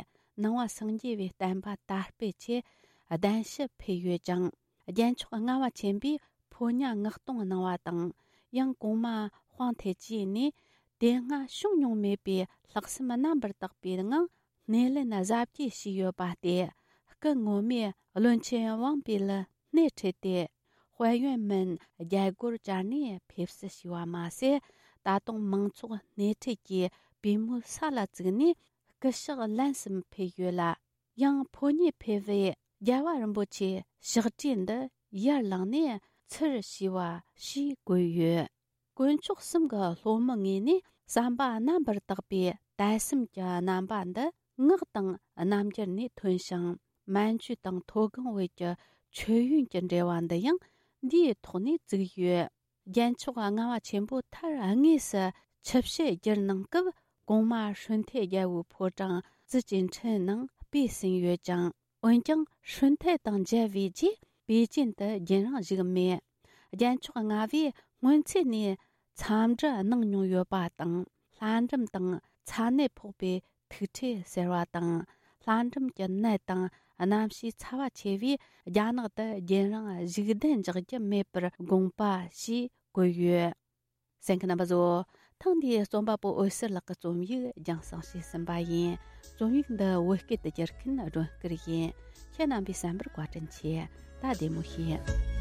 ནང་བ་སངས་རྒྱས་པའི་བསྟན་པ་དར་སྤེལ་ཆེད་གདན་ཞུ་ཕུལ་ཡོད་ཅིང་། རྒྱལ་མཆོག་ལྔ་པ་ཆེན་པོས་ཕོ་ཉ་མངགས་གཏོང་གནང་བ་དང་། ཡང་གོང་མ་ཧུང་ཐའེ་ཅི་ནས་དེ་སྔ་བྱུང་མྱོང་མེད་པའི་ལྷག་བསམ་རྣམ་པར་དག་པའི་ངང་སྣེ་ལེན་གཟབ་རྒྱས་བྱས་ཡོད་པ་སྟེ། སྐུ་ངོ་མས་བློན་ཆེན་ཝང་པི་ལ་སྣེ་ཁྲིད་དེ། དཔལ་ཡོན་མིན་རྒྱལ་སྒོར་བཅར་ནས་ཕེབས་བསུ་ཞུས་པ་མ་ཟད། ད་དུང་མང་ཚོགས་སྣེ་ཁྲིད་ཀྱིས་པུས་མོའི་ས་ལ་བཙུགས་ནས་སྐུ་ཕྱག་ལན་གསུམ་ཕུལ་ཡོད་ལ། ཡང་ཕོ་ཉས་ཕེབས་པའི་རྒྱལ་བ་རིན་པོ་ཆེའི་ཕྱག་བྲིས་འདི་ཡར་ལངས་ནས་ཚུར་ཞུས་པ་ཞེས་བཀོད་ཡོད། དཀོན་མཆོག་གསུམ་གྱི་སློབ་མའི་ངོས་ནས་བསམ་པ་རྣམ་པར་དག་པའི་དད་སེམས་ཀྱི་རྣམ་པ་འདི་ངག་དང་རྣམ་འགྱུར་ནས་ཐོན་ཞིང་། མན་ཇུ་དང་མཐོ་སྒང་བོད་ཀྱི་མཆོད་ཡོན་གྱི་འབྲེལ་བ་འདི་ཡང་འདིའི་ཐོག་ནས་བཙུགས་ཡོད། རྒྱལ་མཆོག་ལྔ་པ་ཆེན་པོ་མཐར་དངོས་སུ་ཆིབས་ཞལ་བསྒྱུར་གནང་སྐབས། གོང་མ་ཧྲུན་ཐའེ་རྒྱལ་པོའི་ཕོ་བྲང་ཙི་ཅིན་ཁྲིན་ནང་སྤོས་ཟིན་ཡོད་ཅིང་། འོན་ཀྱང་ཧྲུན་ཐའེ་དང་མཇལ་བའི་རྗེས་པེ་ཅིན་དུ་རྒྱུན་རིང་བཞུགས་མེད། རྒྱལ་མཆོག་ལྔ་པས་སྔོན་ཚེ་ནས་འཚམས་འདྲི་གནང་མྱོང་ཡོད་པ་དང་། ལྷ་འབྲུམ་དང་ཚ་ནད་ཕོག་པའི་ཐུག་འཕྲད་ཟེར་བ་དང་། ལྷ་འབྲུམ་གྱི་ནད་དང་གནམ་གཤིས་ཚ་བ་ཆེ་བས་རྒྱ་ནག་ཏུ་རྒྱུན་རིང་བཞུགས་གདན་འཇགས་རྒྱུ་མེད་པར་དགོངས་པ་ཞེས་བཀོད་ཡོད། གསན་མཁན་རྣམ་པ་ཚོ། ཐེངས་འདིའི་རྩོམ་པ་པོ་འོད་ཟེར་ལགས་ཀྱི་རྩོམ་ཡིག་རྒྱང་སྲིང་བྱས་ཟིན་པ་ཡིན། རྩོམ་ཡིག་འདི་བོད་སྐད་དུ་བསྒྱུར་མཁན་སྒྲོན་སྐུར་ཡིན། ཁྱེད་རྣམ་པས་གསན་པར་བཀའ་དྲིན་ཆེ། ད་བདེ་མོ་བྱོས།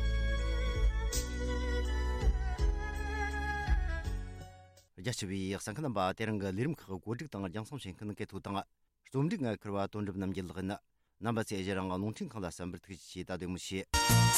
རྒྱ་ཆེ་བའི་གསན་མཁན་རྣམ་པ། དེ་རིང་གི་ལས་རིམ་ཁག་གོ་སྒྲིག་དང་རྒྱང་སྲིང་བྱེད་མཁན་སྐད་ཐོག་དང་། རྩོམ་སྒྲིག་ངས་ཁུར་བ་དོན་གྲུབ་རྣམ་རྒྱལ་ལགས་ཡིན། རྣམ་པ་ཚོས་གཞི་རང་རླུང་འཕྲིན་ཁང་ལ་གསན་པར་ཐུགས་རྗེ་ཆེ། ད་བདེ་མོ་བྱོས།